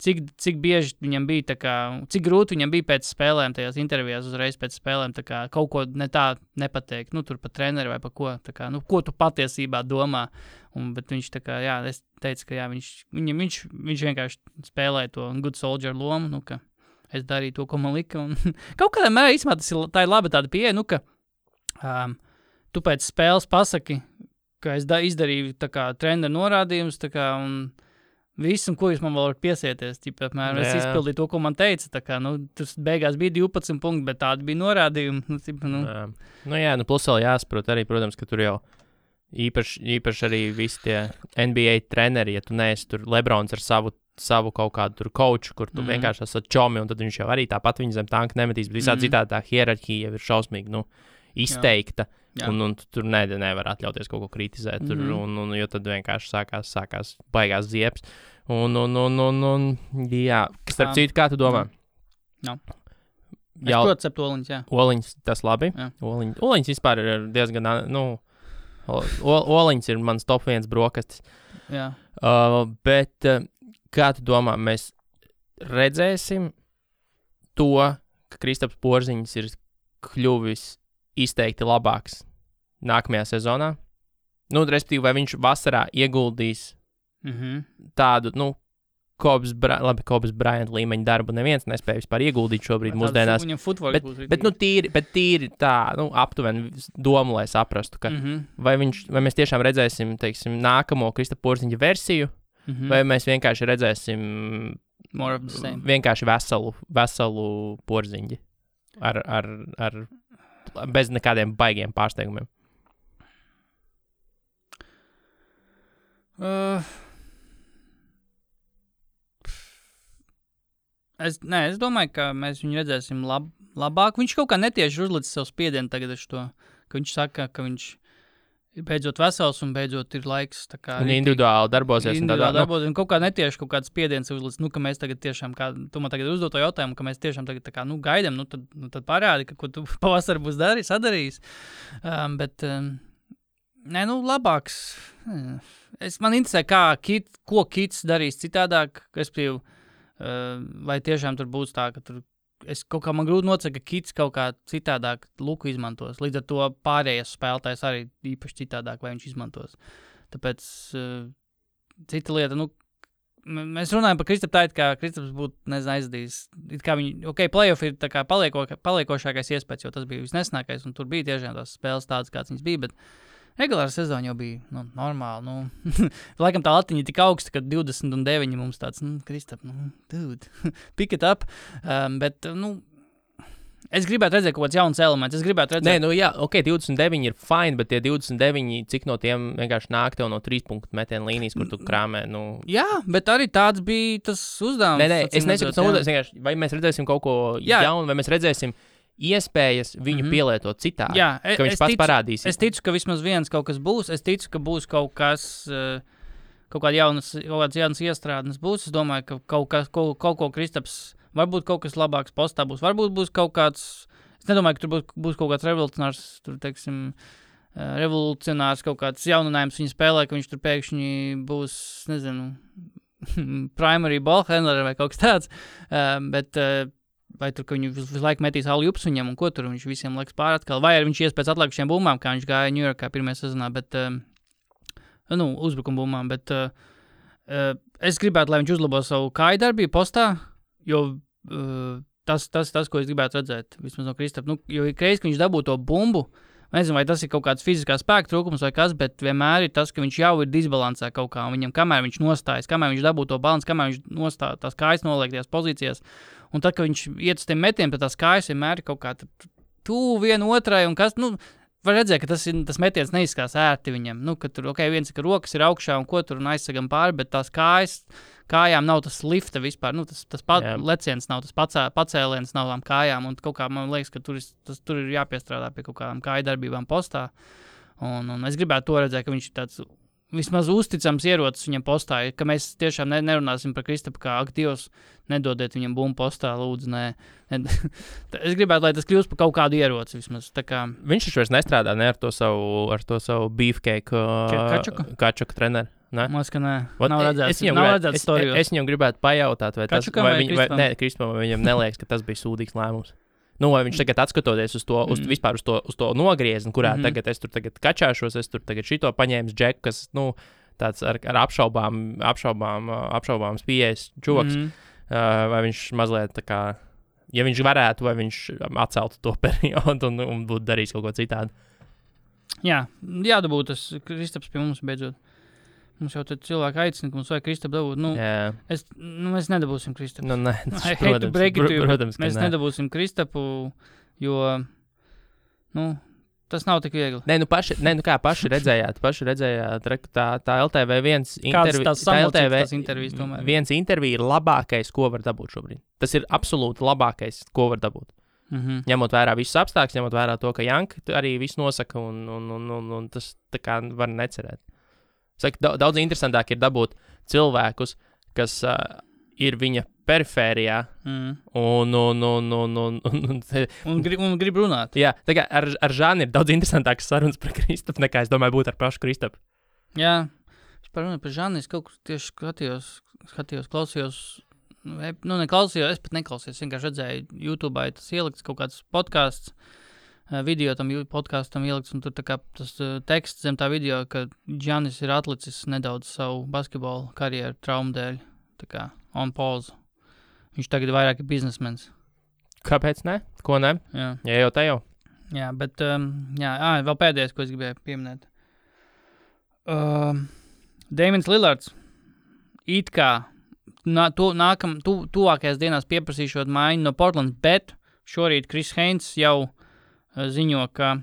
cik bieži viņam bija, tā kā, cik grūti viņam bija pēc spēlēm, tajās intervijās uzreiz pēc spēlēm, tā kā kaut ko ne tā nepateikt, tur par treneru vai par ko, tā kā, ko tu patiesībā domā, bet viņš tā kā, es teicu, ka viņš vienkārši spēlēja to good soldier lomu, ka es darīju to, ko man lika, un kaut kādā mērā īstenībā tā ir laba tāda pieeja, ka tu pēc spēles pasaki, ka es izdarīju tā kā treneru norādījumus, tā kā, un visu, un ko jūs man vēl varat piesieties, apmēram, es izpildīju to, ko man teica, tā kā, tas beigās bija 12 punkti, bet tādi bija norādījumi, plus vēl jāsaprot arī, protams, ka tur jau īpaši arī visi tie NBA treneri, ja tu neesi tur Lebrons ar savu kaut kādu tur coachu, kur tu vienkārši esat čomi, un tad viņš jau arī tāpat viņa zem tanka nemetīs, bet visādi citādi tā hierarhija jau ir šausmīgi, izteikta. Un tur nevar atļauties kaut ko kritizēt, jo tad vienkārši sākās baigās ziepes. Jā, starp citu, kā tu domā? Es protu cept oliņus, jā. Oliņus, tas labi. Oliņus vispār ir diezgan, oliņus ir mans top 1 brokastis. Jā. Bet kā tu domā, mēs redzēsim to, ka Kristaps Porziņš ir kļuvis izteikti labāks nākamajā sezonā. Respektīvi, vai viņš vasarā ieguldīs tādu, Kobes Bryant līmeņa darbu neviens nespēja vispār ieguldīt šobrīd mūsdienās. Bet tīri tā, aptuveni domu, lai saprastu, ka vai mēs tiešām redzēsim, teiksim, nākamo Kristapa Porziņa versiju, vai mēs vienkārši redzēsim vienkārši veselu Porziņu ar bez nekādiem baigiem pārsteigumiem. Es domāju, ka mēs viņu redzēsim labāk. Viņš kaut kā netieši uzlicis savu spiedienu tagad ar to, ka viņš saka, ka viņš ir beidzot vesels un beidzot ir laiks. Tā kā un individuāli darbosies. Un kaut kā netieši kaut kāds spiediens uzlicis, ka mēs tagad tiešām, kā tu man tagad uzdot to jautājumu, ka mēs tiešām tagad tā kā, gaidam, tad parādi, ka ko tu pavasarī būs sadarījis. Labāks. Man interesē, ko Kits darīs citādāk, vai tiešām tur būs tā, ka tur kaut kā man grūti nocēt, ka Kits kaut kā citādāk Luku izmantos. Līdz ar to pārējais spēlētājs arī īpaši citādāk, vai viņš izmantos. Tāpēc cita lieta, mēs runājam par Kristapu tā, it kā Kristaps būtu, aizadījis. It kā viņi, playoff ir tā kā paliekošākais iespējas, jo tas bija visnesnākais, un tur bija tiešām tās spēles tādas, kāds viņas bija, bet regulāra sezona jau bija, normāli, Laikam tā latiņa tik augsta, ka 29 mums tāds, Kristap, dude, pick it up, bet, es gribētu redzēt kaut kāds jauns elements. Es gribētu redzēt... Nē, 29 ir fine, bet tie 29, cik no tiem vienkārši nāk tev no 3 punktu metienu līnijas, kur tu krāmē, Jā, bet arī tāds bija tas uzdevums. Nē, es nesaku, vai mēs redzēsim kaut ko jaunu, vai mēs redzēsim iespējas viņu pielietot citādi, ka viņš pats parādīs. Es ticu, ka vismaz viens kaut kas būs. Es ticu, ka būs kaut kas... Kaut kādas jaunas iestrādnes būs. Es domāju, ka kaut ko Kristaps... Varbūt kaut kas labāks postā būs. Varbūt būs kaut kāds... Es nedomāju, ka tur būs kaut kāds revolucionārs kaut kāds jauninājums viņa spēlē, ka viņš tur pēkšņi būs, primary ball handler vai kaut kas tāds. Vai tur, ka viņu visu laiku metīs alley-oops viņam un ko tur viņš visiem laiks pār atkal. Vai arī viņš ies pēc atlikušiem bumbām, kā viņš gāja New Yorkā pirmajā sezonā, bet... uzbrukuma bumbām, bet es gribētu, lai viņš uzlabo savu kāju darbību postā, jo tas, ko es gribētu redzēt, vismaz no Kristapa, jo ik reiz, ka viņš dabū to bumbu, nezinu, vai tas ir kaut kāds fiziskā spēka trūkums vai kas, bet vienmēr ir tas, ka viņš jau ir disbalansē kaut kā, un viņam, kamēr viņš nostājas, kamēr viņš dabū to balansu, kamēr viņš nostāja tās kājas noliek tajās pozīcijās, un tad, kad viņš iet uz tiem metiem, tad tās kājas vienmēr ir kaut kā tuvu vienu otrai, un kas, var redzēt, ka tas metiens neizskās ērti viņam. Ka tur, viens, ka rokas ir augšā un ko tur un aizsagam pāri, bet tās kājām nav tas lifta vispār. Tas leciens nav, tas pacēliens nav tām kājām. Un kaut kā man liekas, ka tur ir jāpiestrādā pie kaut kādām kāju darbībām postā. Un es gribētu to redzēt, ka viņš ir tāds vismaz uzticams ierocis viņam postā, ka mēs tiešām nerunāsim par Kristapu kā aktīvs, nedodiet viņam bumbu postā, lūdzu, nē. Es gribētu, lai tas kļūst par kaut kādu ieroci vismaz. Viņš taču vairs nestrādā ar to savu beefcake Kačuka treneru. Māc, ka nē. Nav redzēts storiju. Es viņam gribētu pajautāt, vai Kačukam vai Kristapam viņam neliekas, ka tas bija sūdīgs lēmums. Vai viņš tagad atskatoties uz to, uz to nogriezni, kurā tagad es tur kačāšos, es tur tagad šito paņēmu džeku, kas, tāds ar apšaubāms pieejas čoks, vai viņš mazliet tā kā, ja viņš varētu, vai viņš atceltu to periodu un būtu darījis kaut ko citādi. Jā, jādabū tas Kristaps pie mums beidzot. Mums jau tad cilvēki aicina, ka mums vajag Kristapu dabūt. Mēs nedabūsim Kristapu. Protams, mēs nedabūsim Kristapu, jo, tas nav tik viegli. Paši redzējāt, tā LTV1 intervija ir labākais, ko var dabūt šobrīd. Tas ir absolūti labākais, ko var dabūt. Ņemot vērā visus apstākļus, ņemot vērā to, ka Janka arī visu nosaka, un tas tā kā var necerēt. Saka, daudz interesantāk ir dabūt cilvēkus, kas ir viņa perifērijā un grib runāt. Jā, tā kā ar Žāni ir daudz interesantākas sarunas par Kristapu, nekā es domāju būtu ar pašu Kristapu. Jā, es par Žāni es kaut kur tieši skatījos, klausījos, es pat neklausījos, vienkārši redzēju YouTube, tas ielikts kaut kāds podcasts, video tam podkastam ielikts, un tur tā kā tas teksts zem tā video, ka Giannis ir atlicis nedaudz savu basketbolu karjeru traumu dēļ, tā kā on pause. Viņš tagad vairāk ir biznesmens. Kāpēc ne? Ko ne? Jā. Ja jau te jau. Jā, bet, vēl pēdējais, ko es gribēju pieminēt. Damians Lillards it kā tuvākajās dienās pieprasīšot maiņu no Portlands, bet šorīt Chris Haynes jau ziņo, ka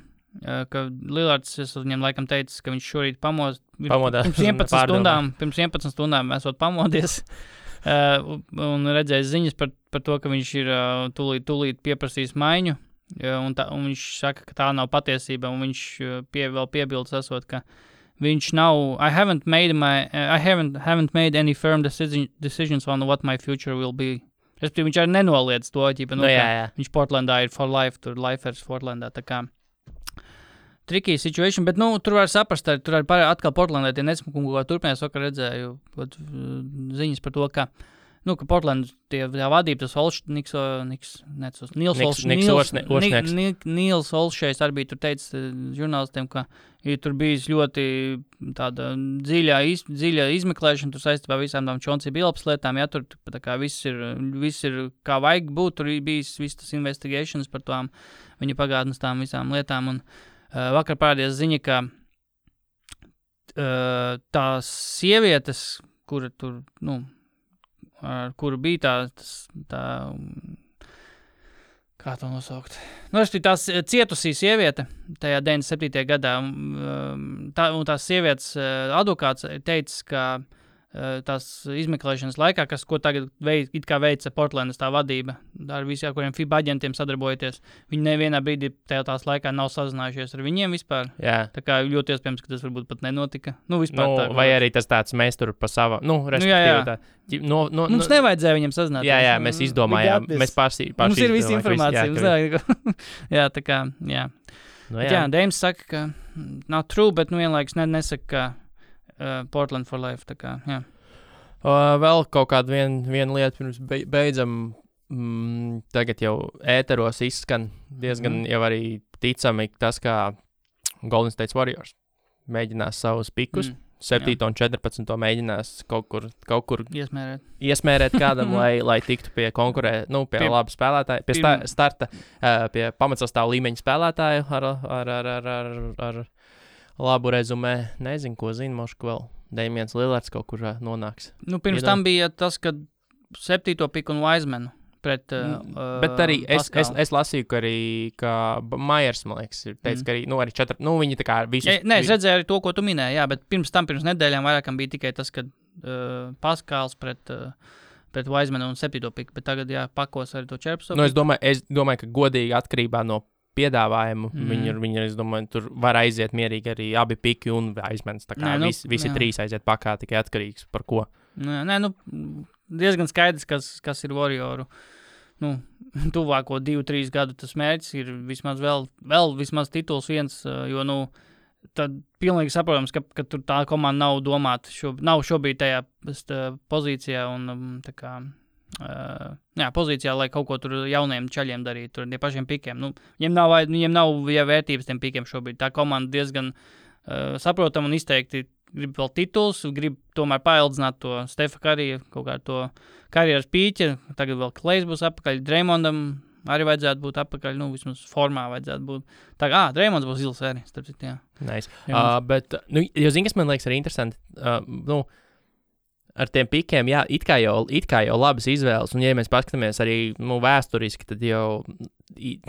Lillards, es viņam laikam teicis, ka viņš šorīt pamodās pirms 11 stundām esot pamodies un redzējis ziņas par to, ka viņš ir tūlīt pieprasījis maiņu, un viņš saka, ka tā nav patiesība, un viņš vēl piebildes esot, ka viņš nav, I haven't made any firm decisions on what my future will be. Viņš arī nenoliedz to, viņš Portlandā ir for life, tur lifers Portlandā, tā kā tricky situation, bet, tur var saprast, tur arī atkal Portlandā tie nesmukumi, ko turpinājās, vakar redzēju ziņas par to, ka, ka Portland tie vadība, tas Nils Olšējs arī bija tur teicis žurnālistiem, ka ir tur bijis ļoti tāda dziļa izmeklēšana, tur saistībā visām tām Chauncey Billups lietām, ja tur tā kā viss ir kā vajag būt, tur bijis viss tas investigations par tām viņa pagātnes tām visām lietām, un vakar parādījās ziņa, ka tās sievietes, kura tur, ar kuru bija tā kā to nosaukt? Tās cietusī sieviete tajā 97. gadā, un tās sievietes advokāts teica, ka tās izmeklēšanas laikā, ko tagad veica Portlandas tā vadība, ar visiem, kuriem FIBA aģentiem sadarbojoties, viņi nevienā brīdī tās laikā nav sazinājušies ar viņiem vispār. Jā. Tā kā ļoti iespējams, ka tas varbūt pat nenotika. Vispār vai arī tas tāds mēs tur pa savu, respektīvi mums nevajadzēja viņiem sazināties. Jā, mēs izdomājām, mēs paši mums ir visa informācija. Jā, tā kā, jā. Jā, Deims saka, ka nav true, bet vienlaikus nesaka, ka Portland for life, tā kā, jā. Vēl kaut kāda viena lieta, pirms beidzam, tagad jau ēteros izskan diezgan jau arī ticami tas, kā Golden State Warriors mēģinās savus pikus, 7 un 14 mēģinās kaut kur iesmērēt kādam, lai tiktu pie pie laba spēlētāja, pie starta, pie pamatsastāvu līmeņa spēlētāju ar labu rezumē. Nezinu, ko zinu, mošku vēl. Damians Lillards kaut kur nonāks. Pirms tam bija tas, ka 7. piku un Wisemanu pret bet arī es lasīju, ka arī Myers, man liekas, ir teicis, ka arī, arī 4, viņi tā kā visus... Es redzēju arī to, ko tu minēji, jā, bet pirms nedēļām vairākam bija tikai tas, ka Paskāls pret Wisemanu un 7. piku, bet tagad, jā, pakos arī to 14. Es domāju, ka godīgi atkarībā no piedāvājumu. Viņi, es domāju, tur var aiziet mierīgi arī abi piki un Wisemans. Tā kā visi trīs aiziet pakā, tikai atkarīgs par ko. Diezgan skaidrs, kas ir Warrioru. Tuvāko 2-3 gadu tas mērķis ir vismaz vēl vismaz tituls viens, jo, tad pilnīgi saprotams, ka tur tā komanda nav domāta, nav šobrīd tajā pozīcijā un tā kā pozīcijā, lai kaut ko tur jauniem čaļiem darītu, tur tie pašiem pikiem. Viņiem nav vērtības tiem pikiem šobrīd. Tā komanda diezgan saprotam un izteikti grib vēl tituls, grib tomēr paildzināt to Stefa Kariju, kaut kā to karjeras pīķi. Tagad vēl Klejs būs atpakaļ, Draymondam arī vajadzētu būt atpakaļ, vismaz formā vajadzētu būt. Draymonds būs zils arī, starp citu, jā. Nice. Bet, jo zini, kas man liekas arī interesanti, ar tiem pikiem, jā, it kā jau labas izvēles, un ja mēs paskatāmies arī vēsturiski, tad jau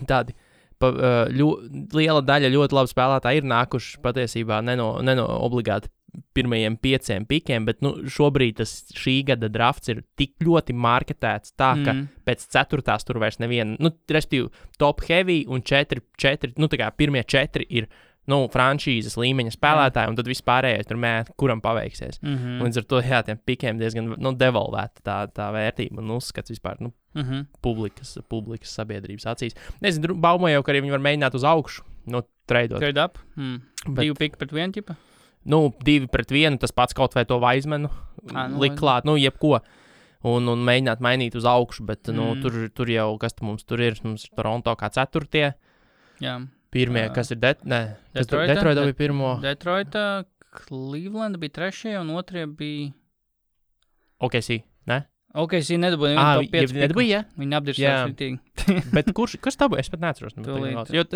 tādi liela daļa ļoti labu spēlētāji ir nākuši patiesībā ne no obligāti pirmajiem 5 pikiem, bet šobrīd šī gada drafts ir tik ļoti marketēts tā, ka pēc 4. tur vairs neviena, respektīvi top heavy un 4, tā kā pirmie 4 ir franšīzes līmeņa spēlētāji, un tad vispārējais tur mēt, kuram paveiksies. Līdz ar to, jā, tiem pikiem diezgan devalvēta tā vērtība un uzskats vispār, publikas sabiedrības acīs. Nezinu, baumoju jau, ka arī viņi var mēģināt uz augšu, treidot. Trade up? 2 piki pret 1 ķipa? 2 pret 1, tas pats kaut vai to Wisemanu likt klāt, jebko. Un mēģināt mainīt uz augšu, bet, tur jau, kas mums tur ir? Mums ir Toronto kā 4. Jā. Pirmie, kas ir Detroita bija pirmo. Detroita, Cleveland bija 3. un 2. bija... OKC, ne? OKC nedabūja nevienu top 5 piku. Ja? Viņi apdirsās ritīgi. Bet kas tā būja? Es pat neatceros. Jo,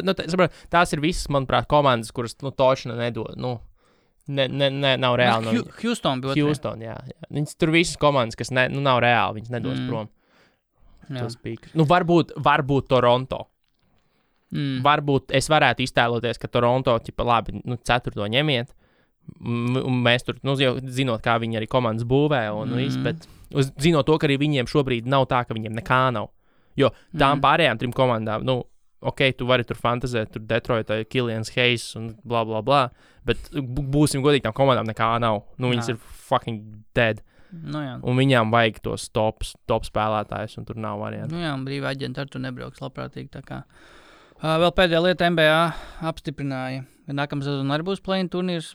tās ir visas, manuprāt, komandas, kuras, točna nedod, nav reāli. Houston bija 2. Houston, jā. Viņas tur visas komandas, kas nav reāli, viņas nedos prom. Tos pikus. Varbūt Toronto. Varbūt es varētu iztēloties, ka Toronto, labi, 4. ņemiet, un mēs tur, jau zinot, kā viņi arī komandas būvē, un bet zinot to, ka arī viņiem šobrīd nav tā, ka viņiem nekā nav. Jo tām pārējām 3 komandām, tu vari tur fantazēt, tur Detroitā, Killians Hayes un bla, bla, bla, bet būsim godīgi, tām komandām nekā nav. Viņas ir fucking dead. Un viņām vajag tos top spēlētājus, un tur nav variantu. Un brīvā aģenta ar tu nebrauks labprātīgi, tā kā. Vēl pēdējā lieta NBA apstiprināja. Nākamā sezona arī būs play-in turnīrs.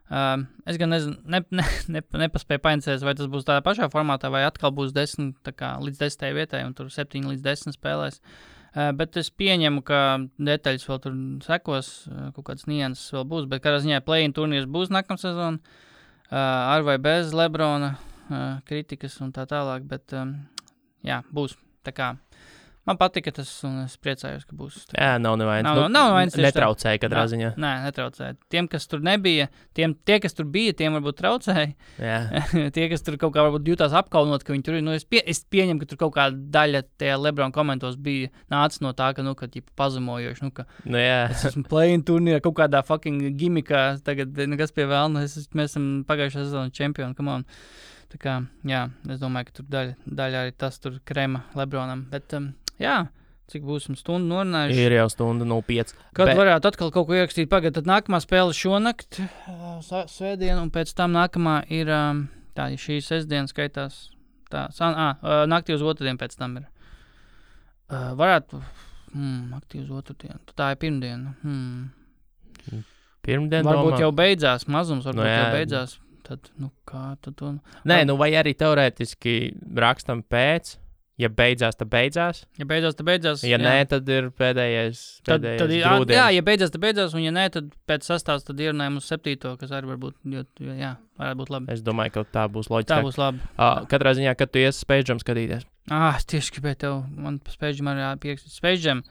Es gan nezinu, nepaspēju painteresēties, vai tas būs tādā pašā formātā, vai atkal būs 10 līdz 10 vietai, un tur 7 līdz 10 spēlēs. Bet es pieņemu, ka detaļas vēl tur sekos, kaut kādas nianses vēl būs, bet kādā ziņā play-in turnīrs būs nākamā sezona, ar vai bez Lebrona kritikas un tā tālāk, bet jā, būs tā kā. Man patika tas, un es priecājos, ka būs. Jā, nav nevainas. Nav nevainas. Netraucēja katrā ziņā. Nē, netraucēja. Tiem, kas tur nebija, tie, kas tur bija, tiem varbūt traucēja. Jā. Tie, kas tur kaut kā varbūt jutās apkaunot, ka viņi tur ir. Es pieņemu, ka tur kaut kāda daļa tajā Lebron komentos bija nācis no tā, ka, pazemojoši, Jā. Es esmu play-in turnīrā kaut kādā fucking gimikā, tagad nekas pie vēlna, mēs esam pagājušā sezona čempioni, come on. Tā kā, jā, es domāju, ka tur daļa arī tas tur krema Lebronam, bet... Jā, cik būsim stundu norunājuši. Ir jau stunda 05. Kad varētu atkal kaut ko ierakstīt pagad, tad nākamā spēle šonakt, svētdien, un pēc tam nākamā ir, tā šī sestdiena skaitās, naktī uz otrdien pēc tam ir. Varētu, naktī uz otrdien, tā ir pirmdiena. Pirmdien varbūt domā? Jau beidzās, mazums varbūt jau beidzās. Tad, kā tad to... Nē, vai arī teorētiski rakstam pēc... Ja beidzās, tad beidzās. Ja beidzās, tad beidzās. Ja nē, tad ir pēdējais grūdienis. Jā, ja beidzās, tad beidzās, un ja nē, tad pēc sastāvs tad ierunājam uz 7, kas arī varbūt, varētu būt labi. Es domāju, ka tā būs loģiski. Tā būs labi. Katrā ziņā, kad tu iesi Space Jam skatīties. Es tieši gribēju tev, man Space Jam arī pierakstīt. Space Jam.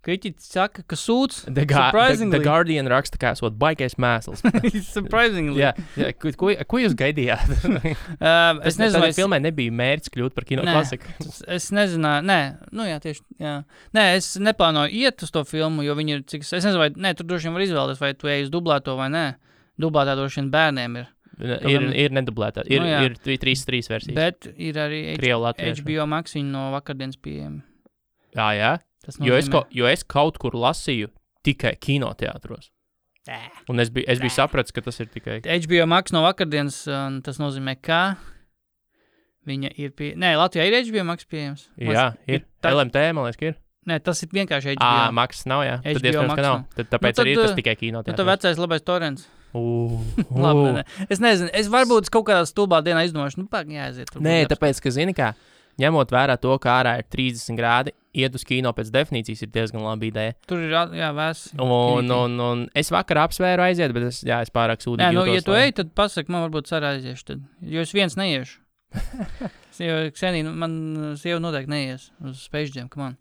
Kritiķi saka, ka sūds. The Guardian raksta, kā esot baigais mēsls. Surprisingly. Jā, ko jūs gaidījāt? Es nezinu, vai filmai nebija mērķis kļūt par kino klasiku. Es nezināju, tieši, jā. Nē, es neplānoju iet uz to filmu, jo viņi ir, es nezinu, vai, tur droši vien var izvēlēties, vai tu ej uz dublēto vai nē. Dublētā droši vien bērniem ir. Ir nedublētā. Ir 3 versijas. Bet ir arī HBO Max no vakardienas pieejami. Jā. Jo es kaut kur lasīju tikai kinoteātros. Un es biju sapratis, ka tas ir tikai... HBO Max no vakardienas, tas nozīmē, ka viņa ir Latvijā ir HBO Max pieejams. Jā, ir. LMT, man liekas, ka ir. Nē, tas ir vienkārši HBO. Max nav, jā. Tad iespējams, ka nav. Tāpēc arī tas tikai kinoteātros. Tad vecais labais torrents. Labi, ne. Es nezinu, es varbūt kaut kādā stulbā dienā izdomāšu, jāaiziet. Nē, tāpēc, ka zini kā, ņemot vērā to, ka ārā ir 30 grādi, iet uz kino pēc definīcijas ir diezgan laba ideja. Tur ir, vēss. Un es vakar apsvēru aiziet, bet es pārāk sūdīgi jūtos. Ja tu ej, tad pasaki, man varbūt sarā aiziešu tad. Jo es viens neiešu. Ksenija, man sieva noteikti neies uz Space Jam, come on.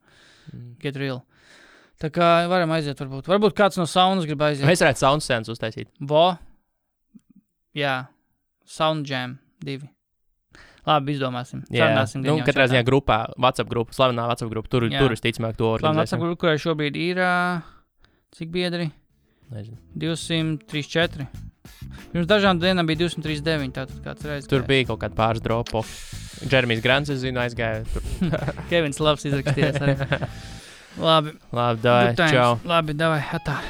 Get real. Tā kā varam aiziet varbūt. Varbūt kāds no saunas grib aiziet. Mēs varētu sound scenes uztaisīt. Jā. Sound Jam 2. Labi, izdomāsim. Katrā ziņā grupā, WhatsApp grupa, slavenā WhatsApp grupa, tur visticamāk to organizēsim. Slavenā WhatsApp grupa, kurai šobrīd ir, cik biedri? Nezinu. 234. Pirms dažām dienām bija 239, tātad kāds reiz. Tur bija kaut kāda pāris dropo. Jeremijs Grants, es zinu, aizgāja tur. Kevins Labs izrakstījās arī. Labi. Labi, davai, čau. Labi, davai, atā.